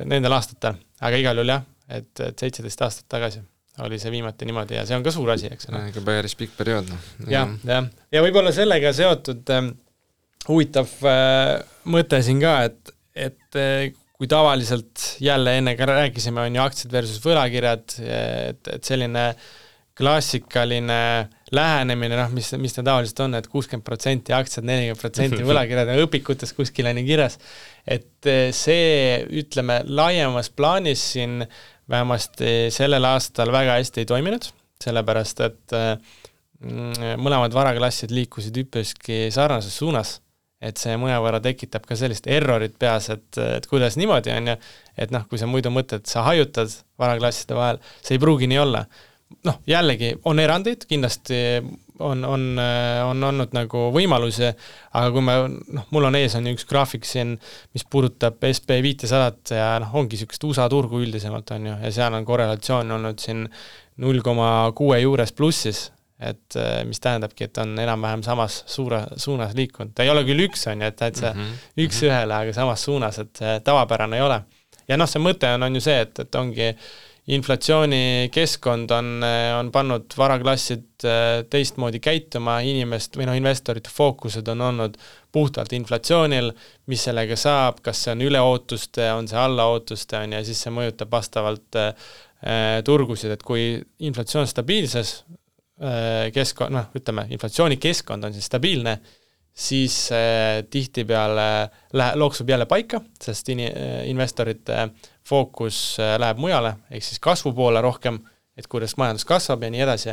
nendel aastatel, aga igal juhul jah, et 17 aastat tagasi oli see viimati niimoodi ja see on ka suur asi, eks. Ikka päris pikk periood. Ja võib-olla sellega seotud huvitav mõte siin ka, et kui tavaliselt jälle enne ka rääkisime, on ju aktsiad versus võlakirjad, et selline klassikaline lähenemine, noh, mis ta tavaliselt on, et 60% aktsiad, 40% võlakirjad ja õpikutes kuskil on kirjas, et see, ütleme, laiemas plaanis siin vähemasti sellel aastal väga hästi ei toiminud, sellepärast, et mõlemad varaklassid liikusid üpriski sarnases suunas, et see mõnevõrra tekitab ka sellist errorit peas, et kuidas niimoodi on ja, et noh, kui sa muidu mõtled, sa hajutad varaklasside vahel, see ei pruugi nii olla. Noh, jällegi on erandid, kindlasti on olnud nagu võimalusi, aga kui mul on ees on üks graafik siin, mis puudutab SP500 ja ongi niisugust USA turgu üldisemalt on ju, ja seal on korrelatsioon olnud siin 0,6 juures plussis, et mis tähendabki, et on enam-vähem samas suunas liikunud. Ta ei ole küll üks on ju, et täitsa üks ühele, aga samas suunas, et tavapärane ei ole. Ja noh, see mõte on ju see, et ongi inflatsiooni keskkond on pannud varaklassid teistmoodi käituma, investorite fookused on olnud puhtalt inflatsioonil, mis sellega saab, kas see on üleootuste, on see allaootuste ja siis see mõjutab vastavalt turgusid, et kui inflatsioon stabiilses keskkond, ütleme, inflatsiooni keskkond on siis stabiilne, siis tihtipeale looksub jälle paika, sest investorite fookus läheb mujale, ehk siis kasvu poole rohkem, et kuidas majandus kasvab ja nii edasi,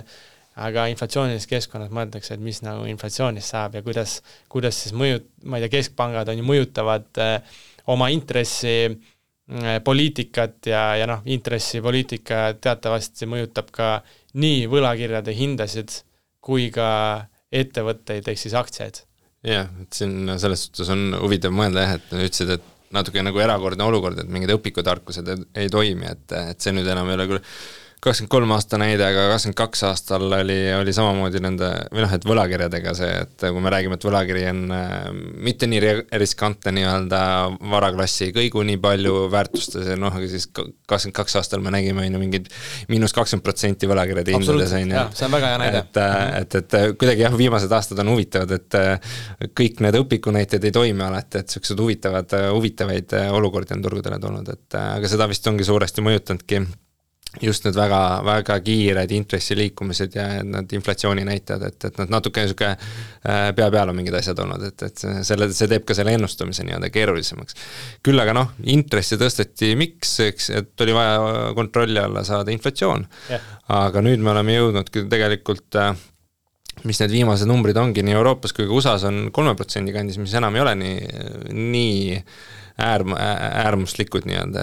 aga inflatsioonilis keskkonnas mõeldakse, et mis nagu inflatsioonist saab ja kuidas siis ma ei tea, keskpangad on ju mõjutavad oma intressi poliitikat ja noh, intressipoliitika teatavasti mõjutab ka nii võlakirjade hindasid kui ka ettevõtteid ehk siis aktsiaid. Jah, et siin selles suhtes on huvitav mõelda jah, et ütlesid, et natuke nagu erakordne olukord, et mingid õpikutarkused ei toimi, et see nüüd enam ei ole küll 23 aasta näide, aga 22 aastal oli samamoodi nende, või noh, et võlakirjadega see, et kui me räägime, et võlakiri on mitte nii riskantne nii-öelda varaklassi kõigu nii palju väärtustes, noh, aga siis 22 aastal me nägime mingid -20% võlakirjade hindades. Jah, see on väga hea näide. Et kuidagi jah, viimased aastad on huvitavad, et kõik need õpikunäited ei toimi alati, et sellised huvitavaid olukordi on turgudele tulnud, et aga seda vist ongi suuresti mõjutanudki just need väga, väga kiired intressiliikumised ja need inflatsiooni näitajad, et nad natuke niisugune pea peal on mingid asjad olnud, et see teeb ka selle ennustamise nii-öelda keerulisemaks. Küll aga noh, intressi tõsteti miks, eks, et oli vaja kontrolli alla saada inflatsioon, aga nüüd me oleme jõudnud tegelikult mis need viimased numbrid ongi nii Euroopas kui ka USA-s on 3% kandis, mis enam ei ole nii äärmuslikud nii-öelda,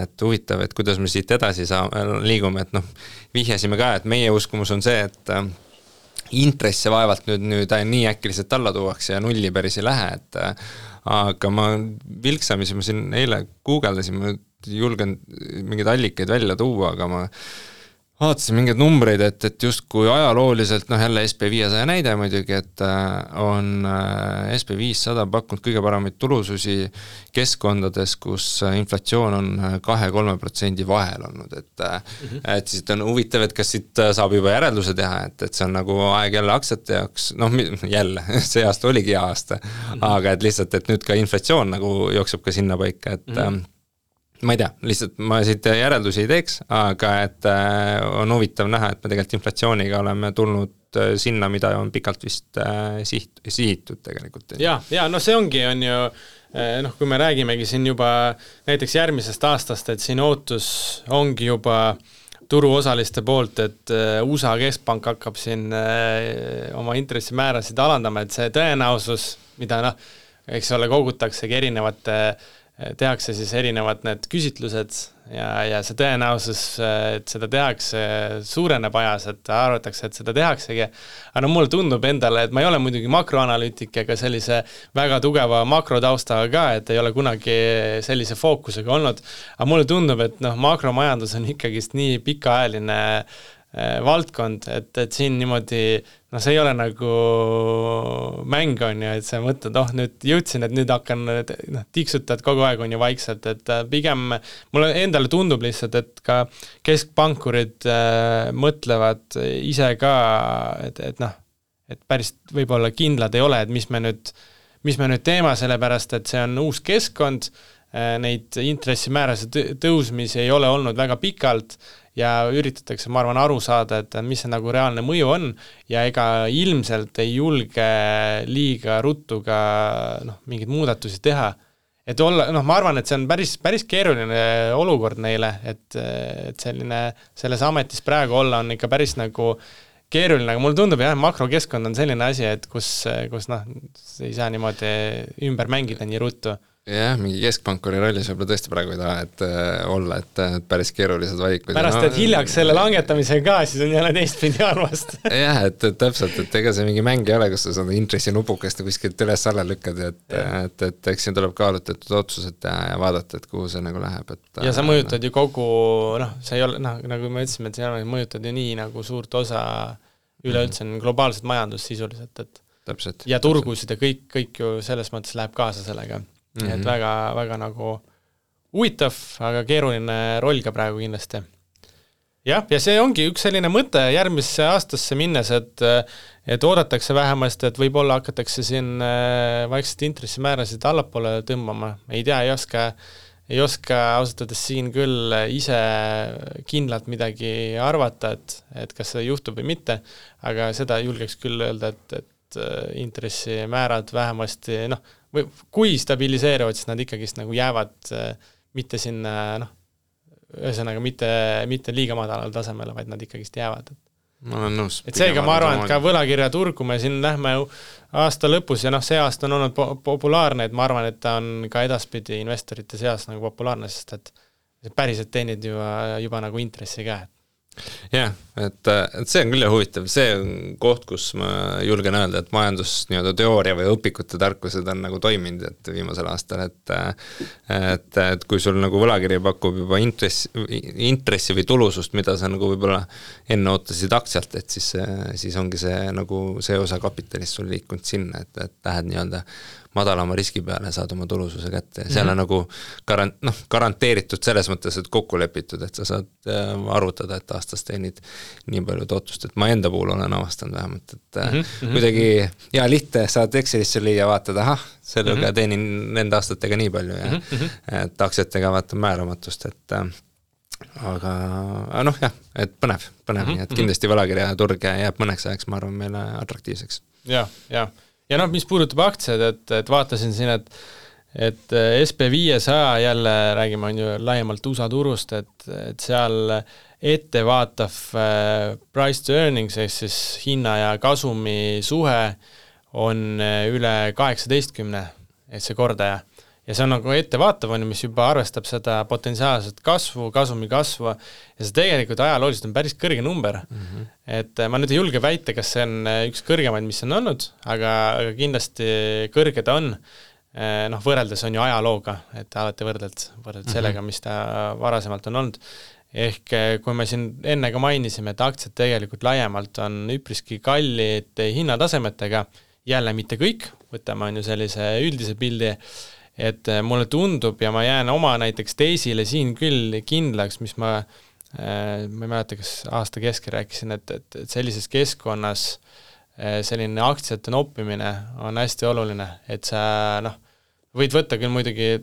et huvitav, et kuidas me siit edasi liigume, et noh, vihjasime ka, et meie uskumus on see, et intresse vaevalt nüüd nii äkiliselt alla tuuakse ja nulli päris ei lähe, et aga ma vilksamisi, ma siin eile guugeldasin, ma julgen mingeid allikaid välja tuua, aga ma vaatasin mingeid numbreid, et justkui ajalooliselt, noh jälle SP500 näide muidugi, et on SP500 pakkunud kõige paremaid tulususi keskkondades, kus inflatsioon on 2-3% vahel olnud, et siis on huvitav, et kas siit saab juba järelduse teha, et see on nagu aeg jälle aktsiate jaoks, noh jälle, see aasta oligi hea aasta, aga et lihtsalt, et nüüd ka inflatsioon nagu jookseb ka sinna paika, et ma ei tea, lihtsalt ma siit järeldusi ei teeks, aga et on huvitav näha, et me tegelikult inflatsiooniga oleme tulnud sinna, mida on pikalt vist sihitud tegelikult. Ja, no see ongi, on ju, noh, kui me räägimegi siin juba näiteks järgmisest aastast, et siin ootus ongi juba turuosaliste poolt, et USA keskpank hakkab siin oma intressimäärasid alandama, et see tõenäosus, mida noh, eks ole, kogutaksegi tehakse siis erinevad need küsitlused ja see tõenäosus, et seda tehakse, suureneb ajas, et arvatakse, et seda tehaksegi. Aga no mulle tundub endale, et ma ei ole muidugi makroanalüütik ega sellise väga tugeva makrotaustaga ka, et ei ole kunagi sellise fookusega olnud. Aga mulle tundub, et noh, makromajandus on ikkagist nii pikaajaline valdkond, et siin niimoodi, no see ei ole nagu mäng on ju, et sa mõtled, nüüd jõudsin, et nüüd hakkan, tiksutad kogu aeg on ju vaikselt, et pigem mulle endale tundub lihtsalt, et ka keskpankurid mõtlevad ise ka, et päris võib-olla kindlad ei ole, et mis me nüüd teema, sellepärast, et see on uus keskkond, neid intressimäärase tõusmisi ei ole olnud väga pikalt ja üritatakse, ma arvan, aru saada, et mis see nagu reaalne mõju on ja ega ilmselt ei julge liiga ruttu ka mingeid muudatusi teha. Et olla, ma arvan, et see on päris keeruline olukord neile, et selline, selles ametis praegu olla on ikka päris nagu keeruline, aga mulle tundub, jah, makrokeskkond on selline asi, et kus ei saa niimoodi ümber mängida nii ruttu. Jah, mingi keskpankuri rollis võib-olla tõesti praegu ei taha, et olla, et päris keerulised valikud. Pärast, et hiljaks selle langetamisega ka, siis on jälle teistpidi arvast. Jah, et täpselt, et ega see mingi mäng ei ole, kus sa saad intressinupukest kuskilt üles alla lükkad, et eks siin tuleb kaalutletud otsused teha ja vaadata, et kuhu see nagu läheb. Ja sa mõjutad ju kogu, see ei ole, nagu me ütlesime, et see mõjutad ju nii nagu suurt osa üleüldse globaalset majandust sisuliselt, et täpselt, ja turgusid ja kõik ju selles mõttes läheb kaasa sellega. Et väga, väga nagu huvitav, aga keeruline roll ka praegu kindlasti. Ja see ongi üks selline mõte järgmisse aastasse minnes, et oodatakse vähemasti, et võib-olla hakatakse siin vaikselt intressimäärasid allapoole tõmbama. Ei tea, ei oska ausatades siin küll ise kindlalt midagi arvata, et kas see juhtub või mitte, aga seda julgeks küll öelda, et intressimäärad vähemasti, või kui stabiliseeruvad, siis nad ikkagist nagu jäävad mitte sinna, ühesõnaga mitte liiga madalal tasemele, vaid nad ikkagist jäävad. Ma olen nõus. Et seega ma arvan, et ka võlakirjaturgu me siin lähme aasta lõpus ja see aasta on olnud populaarne, et ma arvan, et ta on ka edaspidi investorite seas nagu populaarne, sest et päriselt teenid juba nagu intressi ka. Jah, et see on küll huvitav, see on koht, kus ma julgen öelda, et majandus nii-öelda teooria või õpikute tarkused on nagu toiminud, et viimasel aastal, et kui sul nagu võlakiri pakub juba intressi või tulusust, mida sa nagu võib-olla enne ootasid aktsialt, et siis ongi see nagu see osa kapitalist sul liikunud sinna, et lähed nii-öelda madalama riski peale saad oma tulususe kätte ja seal on nagu garanteeritud selles mõttes, et kokku lepitud, et sa saad arvutada, et aastas teenid nii palju tootlust, et ma enda puhul olen avastanud vähemalt, et kuidagi hea lihtne saad Excelisse lüüa, vaatad, sellega teenin nende aastatega nii palju ja et aktsiatega vaatan määramatust, et aga jah, et põnev, nii et kindlasti võlakirjaturg jääb mõneks ajaks, ma arvan, meile atraktiivseks. Ja mis puudutab aktsiad, et vaatasin siin, et SP500 jälle räägime on ju laiemalt USA turust, et seal ettevaatav price to earnings, siis hinna ja kasumi suhe on üle 18, et see kordaja. Ja see on nagu ettevaatav, mis juba arvestab seda potentsiaalset kasvu, kasumi kasvu ja see tegelikult ajalooliselt on päris kõrge number. Et ma nüüd ei julge väita, kas see on üks kõrgemaid, mis on olnud, aga kindlasti kõrge ta on. Võrreldes on ju ajalooga, et alati võrdled sellega, mis ta varasemalt on olnud. Ehk kui me siin enne ka mainisime, et aktsiad tegelikult laiemalt on üpriski kallid hinnatasemetega, jälle mitte kõik, võtame on ju sellise üldise pildi, et mulle tundub ja ma jään oma näiteks teisile siin küll kindlaks, mis ma ei mäleta, kas aasta keskel rääkisin, et sellises keskkonnas selline aktsiate noppimine on hästi oluline, et sa võid võtta küll muidugi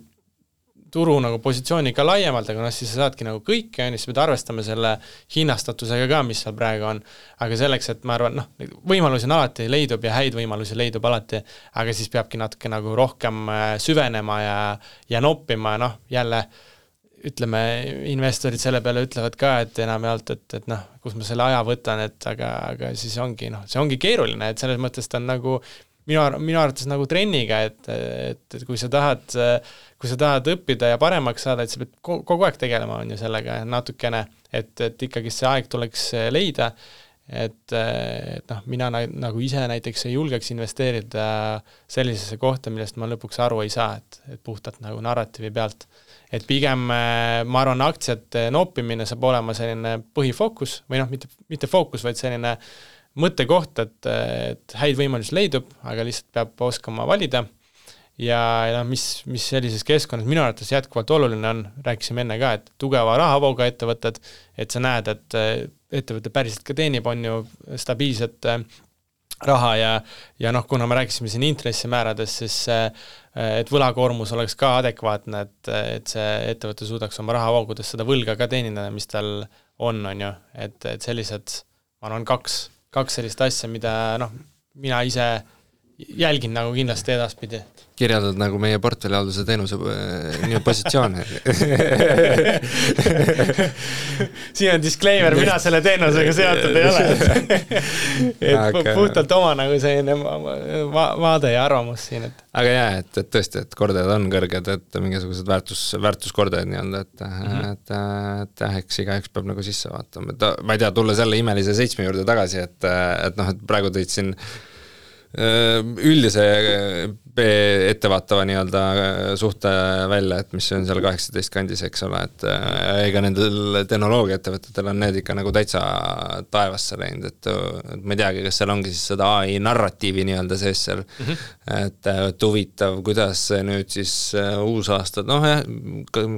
turu nagu positsiooni ka laiemalt, aga siis sa saadki nagu kõike, siis pead arvestama selle hinnastatusega ka, mis seal praegu on. Aga selleks, et ma arvan, võimalusi on alati leidub ja häid võimalusi leidub alati, aga siis peabki natuke nagu rohkem süvenema ja noppima, jälle ütleme, investorid selle peale ütlevad ka, et enamjaolt, et kus ma selle aja võtan, aga siis ongi, see ongi keeruline, et selles mõttes ta on nagu minu arvates nagu trenniga, et kui sa tahad õppida ja paremaks saada, et sa pead kogu aeg tegelema on ju sellega natukene, et ikkagi see aeg tuleks leida, et mina nagu ise näiteks ei julgeks investeerida sellisesse kohta, millest ma lõpuks aru ei saa, et puhtalt nagu narratiivi pealt. Et pigem ma arvan, aktsiate noppimine saab olema selline põhifookus või mitte fookus, vaid selline mõttekoht, et häid võimalusi leidub, aga lihtsalt peab oskama valida ja mis sellises keskkonnas minu arvates jätkuvalt oluline on, rääkisime enne ka, et tugeva rahavooga ettevõtted, et sa näed, et ettevõte päriselt ka teenib, on ju stabiilset raha ja kuna me rääkisime siin intressimäärades, siis et võlakoormus oleks ka adekvaatne, et see ettevõte suudaks oma rahavoogudes seda võlga ka teenida, mis tal on ju, et sellised, ma arvan, kaks sellist asja, mida mina ise jälgin nagu kindlasti edaspidi. Kirjeldad nagu meie portfellihalduse teenuse positsioone. Siin on disclaimer, mina selle teenusega seotud ei ole. Et puhtalt oma nagu selline vaade ja arvamus siin. Aga et tõesti, et kordajad on kõrged, et mingisugused väärtuskordajad nii-öelda, et eks igaüks peab nagu sisse vaatama. Ma ei tea, tulla selle imelise 7 juurde tagasi, et praegu tõid siin üldise ettevaatava nii-öelda suhte välja, et mis on seal 18 kandis, eks ole, et ega nendel tehnoloogiaettevõtetel on need ikka nagu täitsa taevasse läinud, et ma ei teagi, kas seal ongi siis seda AI narratiivi nii-öelda sees seal, et huvitav, kuidas nüüd siis uus aasta,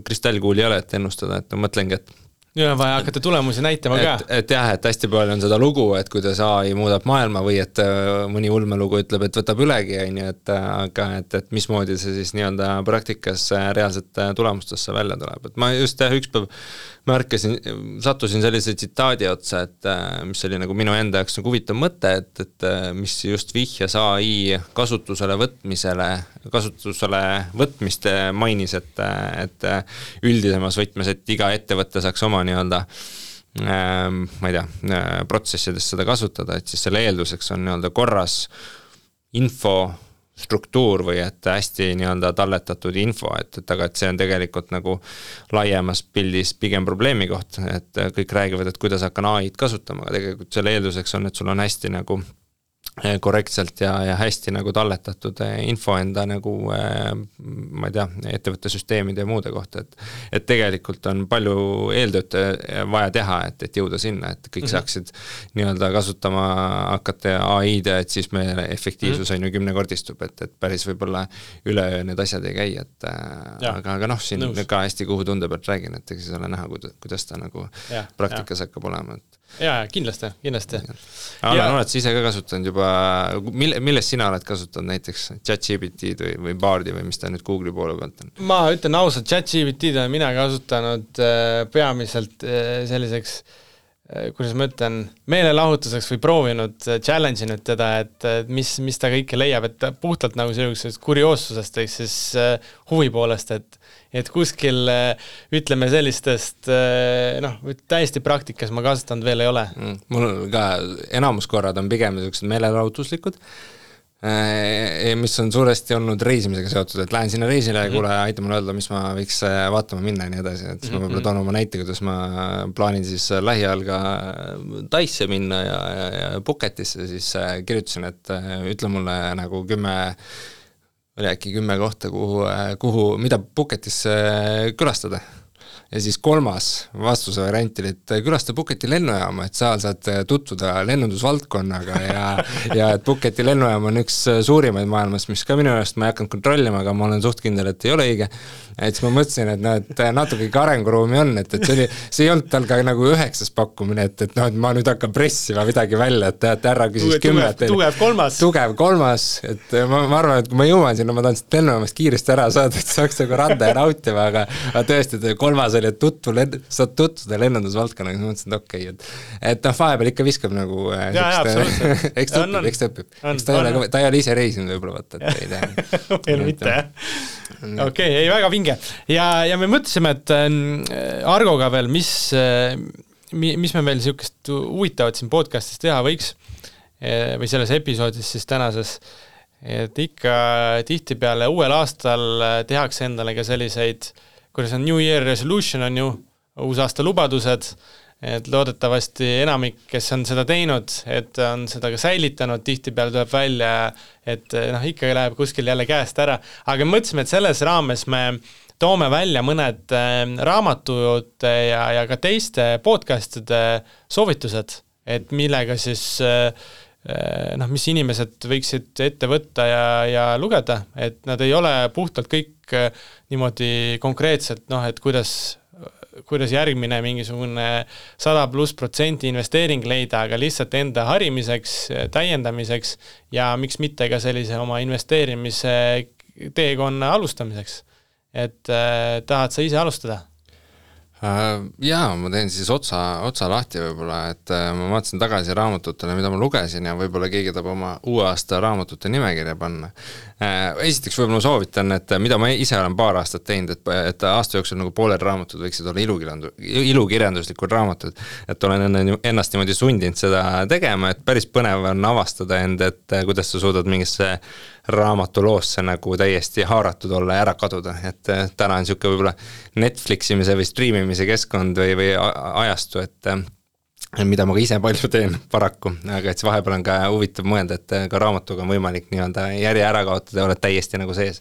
kristallkuuli ei ole, et ennustada, et ma mõtlengi, et ja vaja hakata tulemusi näitama ka. Et hästi palju on seda lugu, et kuidas AI muudab maailma või et mõni ulmelugu ütleb, et võtab ülegi, aga et mismoodi see siis nii-öelda praktikas reaalselt tulemustesse välja tuleb. Et ma just ükspäev sattusin sellise tsitaadi otsa, et mis oli nagu minu enda jaoks nagu huvitav mõte, et mis just vihjas AI kasutusele võtmist mainis, et üldisemas võtmes, et iga ettevõte saaks oma nii-öelda ma ei tea, protsessides seda kasutada, et siis selle eelduseks on nii-öelda korras infostruktuur või et hästi nii-öelda talletatud info, et aga et see on tegelikult nagu laiemas pildis pigem probleemi koht, et kõik räägivad, et kuidas hakkan AI-d kasutama, aga tegelikult selle eelduseks on, et sul on hästi nagu korrektselt ja hästi nagu talletatud info enda nagu, ma ei tea, ettevõtte süsteemide ja muude kohta, et tegelikult on palju eeltööd vaja teha, et jõuda sinna, et kõik saaksid nii-öelda kasutama hakata AI-d, et siis meie efektiivsus on ju 10-kordistub, et päris võib-olla üleöö need asjad ei käi, et aga noh, siin ka hästi kuhu tunde pealt räägin, et eks siis ole näha, kuidas ta nagu praktikas hakkab olema, et jaa, kindlasti. Alan, oled sa ise ka kasutanud juba, millest sina oled kasutanud näiteks ChatGPT või Bardi või mis ta nüüd Google'i poole pealt on? Ma ütlen ausalt, ChatGPT olen mina kasutanud peamiselt selliseks, kuidas ma ütlen, meelelahutuseks või proovinud, challenge inud teda, et mis ta kõike leiab, et puhtalt nagu sellisest kurioossusest ehk siis huvi poolest, et kuskil ütleme sellistest, täiesti praktikas ma kasutanud veel ei ole. Mul ka enamuskorrad on pigem sellised meelelahutuslikud, mis on suuresti olnud reisimisega seotud, et lähen sinna reisile ja kuule, aita mulle öelda, mis ma võiks vaatama minna ja nii edasi, et siis ma võib-olla toon oma näite, kuidas ma plaanin siis lähiajal ka Taisse minna ja Phuketisse, siis kirjutasin, et ütle mulle nagu 10 kohta, mida Phuketis külastada. Ja siis 3. vastuse variant oli, et külasta Phuketi lennujaama, et seal saad tutvuda lennundusvaldkonnaga ja et Phuketi lennujaam on üks suurimaid maailmas, mis ka minu jaoks ma ei hakanud kontrollima, aga ma olen suht kindel, et ei ole õige. Et siis ma mõtlesin, et natuke arenguruumi on, et see ei olnud tal ka nagu 9. pakkumine, et ma nüüd hakkan pressima midagi välja, et härra küsis 10. Tugev 3. Et ma arvan, et kui ma jõuan sinna, ma tahan seda lennujaamast kiiresti ära saada, et saaks nagu randa ja nautima, aga tõesti, 3. oli, et saad tutvuda lennundusvaldkonnaga, siis ma mõtlesin, et okei, et vahepeal ikka viskab nagu eks ta õpib. Ta ei ole ise reisinud võib-olla, vaata, et ei tea. Veel mitte, jah. Okei, ei, väga vinge. Ja me mõtlesime, et Argoga veel, mis me veel niisugust huvitavat siin podcastis teha võiks või selles episoodis siis tänases, et ikka tihtipeale uuel aastal tehakse endale ka selliseid, kuidas on New Year Resolution on ju, uusaasta lubadused, et loodetavasti enamik, kes on seda teinud, et on seda ka säilitanud, tihtipeale tuleb välja, et ikka läheb kuskil jälle käest ära, aga mõtlesime, et selles raames me toome välja mõned raamatud ja ka teiste podcastide soovitused, et millega siis mis inimesed võiksid ette võtta ja lugeda, et nad ei ole puhtalt kõik niimoodi konkreetselt, et kuidas järgmine mingisugune 100+% investeering leida, aga lihtsalt enda harimiseks, täiendamiseks ja miks mitte ka sellise oma investeerimise teekonna alustamiseks. Et tahad sa ise alustada? Jaa, ma teen siis otsa lahti võib-olla, et ma vaatasin tagasi raamatutele, mida ma lugesin ja võib-olla keegi tahab oma uue aasta raamatute nimekirja panna. Esiteks võib-olla soovitan, et mida ma ise olen paar aastat teinud, et aasta jooksul nagu pooled raamatud võiksid olla ilukirjanduslikud raamatud, et olen ennast niimoodi sundinud seda tegema, et päris põnev on avastada end, et kuidas sa suudad mingisse raamatuloosse nagu täiesti haaratud olla ja ära kaduda, et täna on niisugune võib-olla Netfliximise või streamimise keskkond või ajastu, et mida ma ka ise palju teen paraku, aga et see vahepeal on ka huvitav mõelda, et ka raamatuga on võimalik nii-öelda järje ära kaotada ja oled täiesti nagu sees.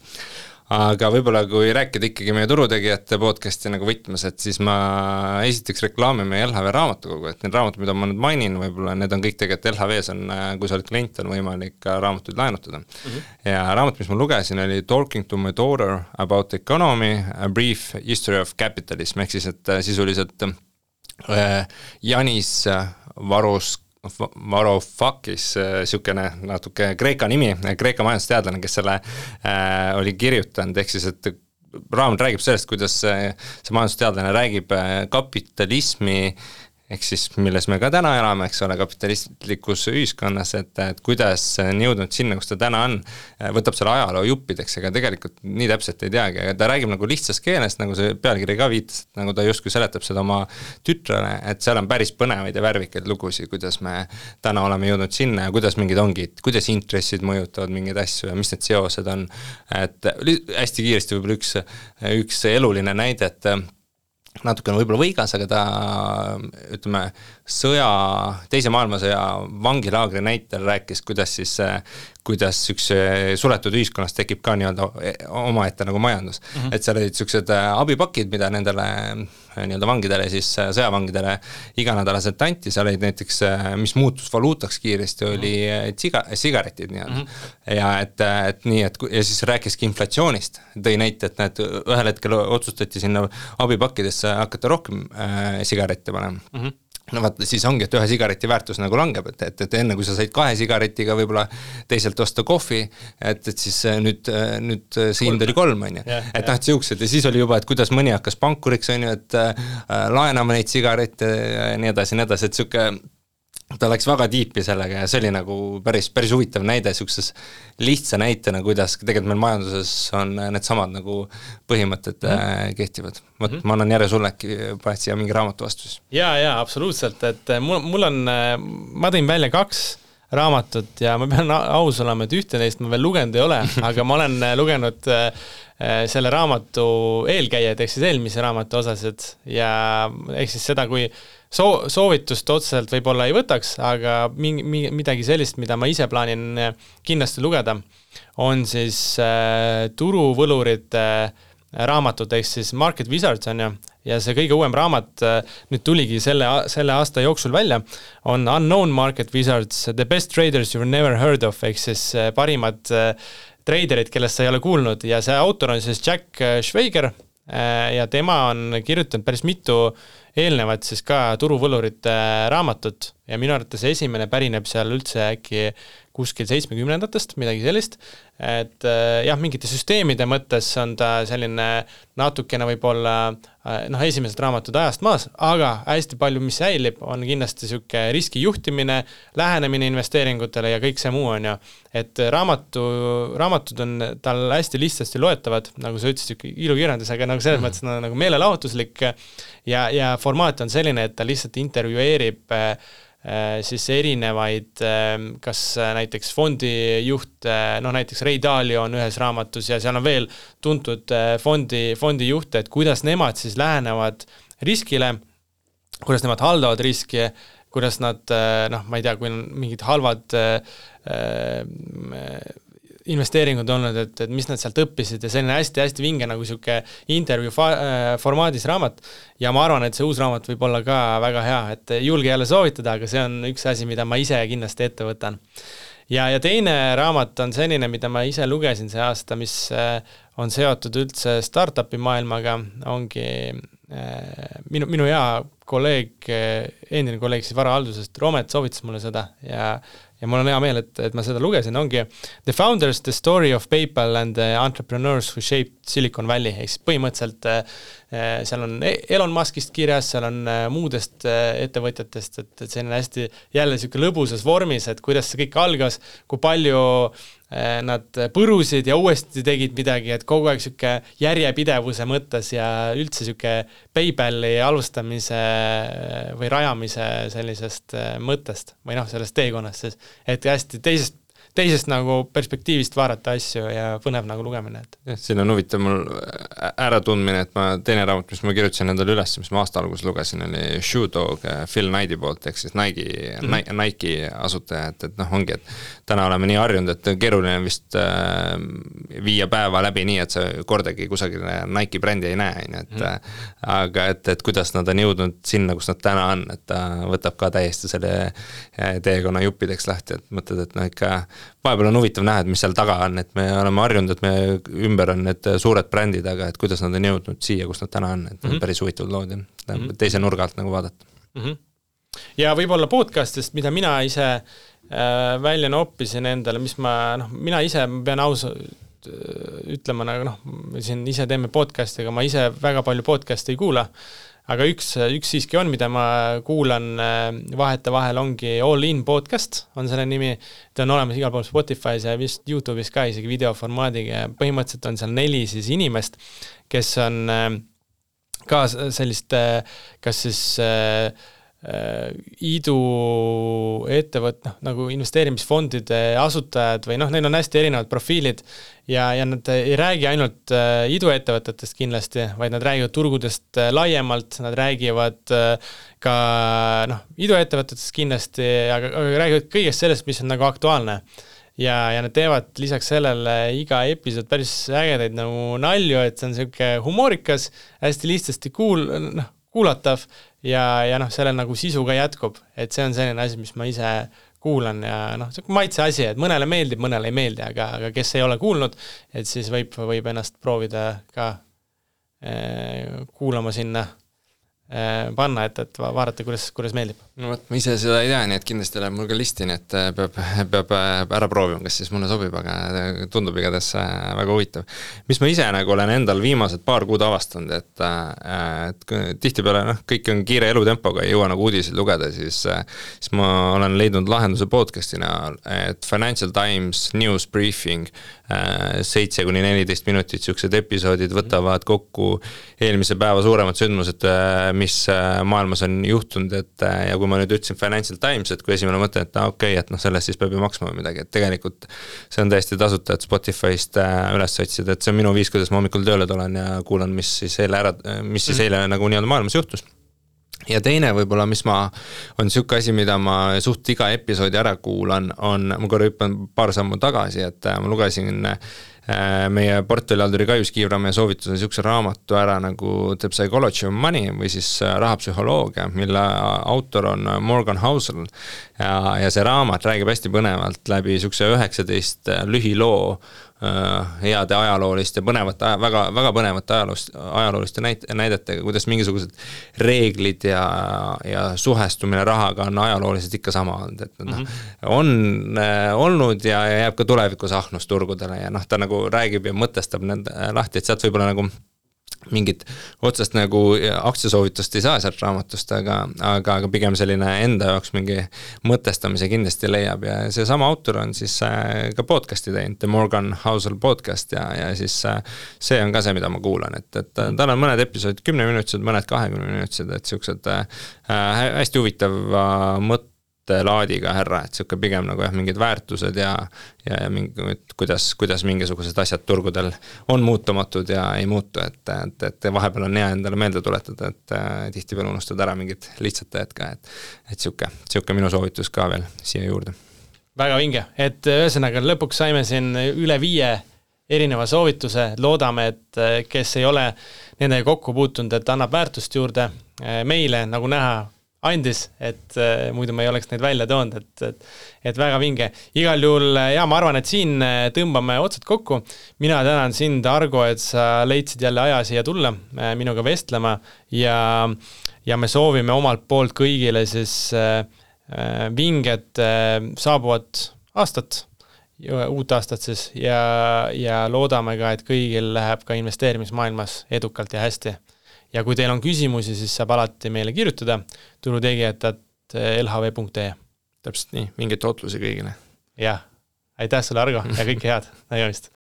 Aga võib-olla kui rääkida ikkagi meie turutegijate podcasti nagu võtmes, et siis ma esiteks reklaamime LHV raamatukogu, et need raamatud, mida ma nüüd mainin, võib-olla need on kõik tegelikult LHVs on, kui sa oled klient, on võimalik ka raamatuid laenutada. Ja raamat, mis ma lugesin, oli Talking to my daughter about economy, a brief history of capitalism, ehk siis, et sisuliselt Janis Varoufakis, niisugune natuke Kreeka nimi, Kreeka majandusteadlane, kes selle oli kirjutanud, ehk siis, et raamat räägib sellest, kuidas see majandusteadlane räägib kapitalismi ehk siis milles me ka täna elame, eks ole, kapitalistlikus ühiskonnas, et kuidas on jõudnud sinna, kus ta täna on, võtab selle ajaloo juppideks, ega tegelikult nii täpselt ei teagi, aga ta räägib nagu lihtsast keelest, nagu see pealkiri ka viitas, et nagu ta justkui seletab seda oma tütrele, et seal on päris põnevaid ja värvikaid lugusid, kuidas me täna oleme jõudnud sinna ja kuidas mingid ongid, kuidas intressid mõjutavad mingeid asju ja mis need seosed on, et hästi kiiresti võib-olla üks eluline näide, et natuke on võib-olla võigas, aga ta, ütleme, teise maailmasõja vangilaagri näitel rääkis, kuidas üks suletud ühiskonnas tekib ka nii-öelda omaette nagu majandus. Et seal olid sellised abipakid, mida nendele nii-öelda vangidele, siis sõjavangidele iganädalaselt anti, seal olid näiteks, mis muutus valuutaks kiiresti, oli sigaretid nii-öelda. Ja et nii, ja siis rääkiski inflatsioonist, tõi näite, et ühel hetkel otsustati sinna abipakkidesse hakata rohkem sigarette panema. No vaata, siis ongi, et ühe sigareti väärtus nagu langeb, et enne kui sa said 2 sigaretiga võib-olla teiselt osta kohvi, et siis nüüd see hind oli 3, on ju. Et siuksed ja siis oli juba, et kuidas mõni hakkas pankuriks, on ju, et laenama neid sigarette ja nii edasi, et siuke ta läks väga tiipi sellega ja see oli nagu päris huvitav näide siukses lihtsa näitena, kuidas tegelikult meil majanduses on need samad nagu põhimõtted kehtivad. Ma annan järje sulle äkki paned siia mingi raamatu vastus. Ja, absoluutselt, et mul on, ma tõin välja 2 raamatut ja ma pean aus olema, et ühte neist ma veel lugenud ei ole, aga ma olen lugenud selle raamatu eelkäijad, ehk siis eelmise raamatu osased ja ehk siis seda, kui soovitust otseselt võib-olla ei võtaks, aga midagi sellist, mida ma ise plaanin kindlasti lugeda, on siis turuvõlurite raamatud, ehk siis Market Wizards on ju, ja see kõige uuem raamat nüüd tuligi selle aasta jooksul välja, on Unknown Market Wizards, The Best Traders You've Never Heard of, ehk siis parimad traderid, kellest sa ei ole kuulnud ja see autor on siis Jack Schwager ja tema on kirjutanud päris mitu eelnevad siis ka turuvõlurite raamatut ja minu arvates esimene pärineb seal üldse äkki kuskil 70-ndatest, midagi sellist, et jah, mingite süsteemide mõttes on ta selline natukene võib-olla esimesed raamatud ajast maas, aga hästi palju, mis säilib, on kindlasti siuke riskijuhtimine, lähenemine investeeringutele ja kõik see muu on ju, et raamatud on tal hästi lihtsasti loetavad, nagu sa ütlesid, ilukirjandus, aga nagu selles mõttes nagu meelelahutuslik ja formaat on selline, et ta lihtsalt intervjueerib siis erinevaid, kas näiteks fondijuht, näiteks Ray Dalio on ühes raamatus ja seal on veel tuntud fondijuhte, et kuidas nemad siis lähenevad riskile, kuidas nemad haldavad riski, kuidas nad, ma ei tea, kui on mingid halvad investeeringud olnud, et mis nad sealt õppisid ja selline hästi-hästi vinge nagu siuke intervjuu formaadis raamat ja ma arvan, et see uus raamat võib olla ka väga hea, et julge jälle soovitada, aga see on üks asi, mida ma ise kindlasti ette võtan. Ja teine raamat on selline, mida ma ise lugesin see aasta, mis on seotud üldse startupi maailmaga, ongi minu hea kolleeg, endine kolleeg siis varahaldusest, Romet soovitas mulle seda ja mul on hea meel, et ma seda lugesin, ongi The Founders, The Story of PayPal and the Entrepreneurs Who Shaped Silicon Valley, ehk siis põhimõtteliselt seal on Elon Muskist kirjas, seal on muudest ettevõtjatest, et see on hästi jälle siuke lõbusas vormis, et kuidas see kõik algas, kui palju nad põrusid ja uuesti tegid midagi, et kogu aeg siuke järjepidevuse mõttes ja üldse siuke PayPali alustamise või rajamise sellisest mõttest või sellest teekonnast siis, et hästi teisest nagu perspektiivist vaadata asju ja põnev nagu lugemine. Siin on huvitav mul äratundmine, et teine raamat, mis ma kirjutasin endale üles, mis ma aasta alguses lugesin, oli Shoe Dog Phil Knighti poolt, ehk siis Nike asutaja, et ongi, et täna oleme nii harjunud, et keeruline vist 5 päeva läbi nii, et sa kordagi kusagil Nike brändi ei näe, aga et kuidas nad on jõudnud sinna, kus nad täna on, et ta võtab ka täiesti selle teekonna juppideks lahti, et mõtled, et ikka vahepeal on huvitav näha, et mis seal taga on, et me oleme harjunud, et me ümber on need suured brändid, aga et kuidas nad on jõudnud siia, kus nad täna on, et päris huvitavad lood ja teise nurga alt nagu vaadata. Ja võib-olla podcastist, mida mina ise välja noppisin endale, mis mina ise pean ausalt ütlema, siin ise teeme podcasti, aga ma ise väga palju podcasti ei kuula, aga üks siiski on, mida ma kuulan vahetevahel, ongi All In podcast, on selle nimi, ta on olemas igal pool Spotify's ja vist YouTube'is ka isegi videoformaadiga ja põhimõtteliselt on seal 4 siis inimest, kes on ka sellist, kas siis iidu nagu investeerimisfondide asutajad või neil on hästi erinevad profiilid ja nad ei räägi ainult iiduettevõtetest kindlasti, vaid nad räägivad turgudest laiemalt, nad räägivad ka iiduettevõtetest kindlasti, aga räägivad kõigest sellest, mis on nagu aktuaalne. Ja nad teevad lisaks sellele iga episood päris ägedaid nagu nalju, et see on selline humoorikas, hästi lihtsasti kuulatav ja sellel nagu sisu ka jätkub, et see on selline asi, mis ma ise kuulan ja see on maitse asi, et mõnele meeldib, mõnele ei meeldi, aga kes ei ole kuulnud, et siis võib ennast proovida ka kuulama sinna panna, et vaadata, kuidas meeldib. No võt, ma ise seda ei tea, nii et kindlasti läheb mul ka listi, nii et peab ära proovima, kas siis mulle sobib, aga tundub igatahes väga huvitav. Mis ma ise nagu olen endal viimased paar kuud avastanud, et tihtipeale kõik on kiire elutempoga, ei jõua nagu uudiseid lugeda, siis ma olen leidnud lahenduse podcastina, et Financial Times News Briefing 7-14 minutit siuksed episoodid võtavad kokku eelmise päeva suuremad sündmused, mis maailmas on juhtunud, et ja kui ma nüüd ütlesin Financial Times, et kui esimene mõte, et okei, et sellest siis peab ju maksma või midagi, et tegelikult see on täiesti tasuta, et Spotify'st üles otsida, et see on minu viis, kuidas ma hommikul tööle tulen ja kuulan, mis siis eile nagu nii-öelda maailmas juhtus. Ja teine võib-olla, mis on siuke asi, mida ma suht iga episoodi ära kuulan, ma korra hüppan paar sammu tagasi, et ma lugesin meie portfellihalduri Kaius Kiivramäe soovitusel siukse raamatu ära nagu The Psychology of Money või siis rahapsühholoogia, mille autor on Morgan Housel ja see raamat räägib hästi põnevalt läbi siukse 19 lühiloo heade ajalooliste, väga põnevate ajalooliste näidetega, kuidas mingisugused reeglid ja suhestumine rahaga on ajalooliselt ikka sama olnud, et on olnud ja jääb ka tulevikus ahnusturgudele ja ta nagu räägib ja mõtestab need lahti, et sealt võib-olla nagu mingit otsest nagu aktsiasoovitust ei saa sealt raamatust, aga pigem selline enda jaoks mingi mõtestamise kindlasti leiab ja see sama autor on siis ka podcasti teinud, The Morgan Housel podcast ja siis see on ka see, mida ma kuulan, et tal on mõned episoodid 10-minutised, mõned 20-minutised, et siuksed hästi huvitav laadiga härra, et siuke pigem nagu mingid väärtused ja kuidas mingisugused asjad turgudel on muutumatud ja ei muutu, et vahepeal on hea endale meelde tuletada, et tihtipeale unustad ära mingid lihtsad teed ka, et siuke minu soovitus ka veel siia juurde. Väga vinge, et ühesõnaga lõpuks saime siin üle 5 erineva soovituse, loodame, et kes ei ole nendega kokku puutunud, et annab väärtust juurde meile, nagu näha andis, et muidu me ei oleks neid välja toonud, et väga vinge. Igal juhul, ma arvan, et siin tõmbame otsad kokku. Mina tänan sind, Argo, et sa leidsid jälle aja siia tulla minuga vestlema ja me soovime omalt poolt kõigile siis vinget saabuvat aastat, uut aastat siis ja loodame ka, et kõigil läheb ka investeerimismaailmas edukalt ja hästi. Ja kui teil on küsimusi, siis saab alati meile kirjutada turutegijad@lhv.ee. Täpselt nii, mingeid otlusi kõigile. Jah, aitäh sulle, Argo, ja kõike head. Nägemist.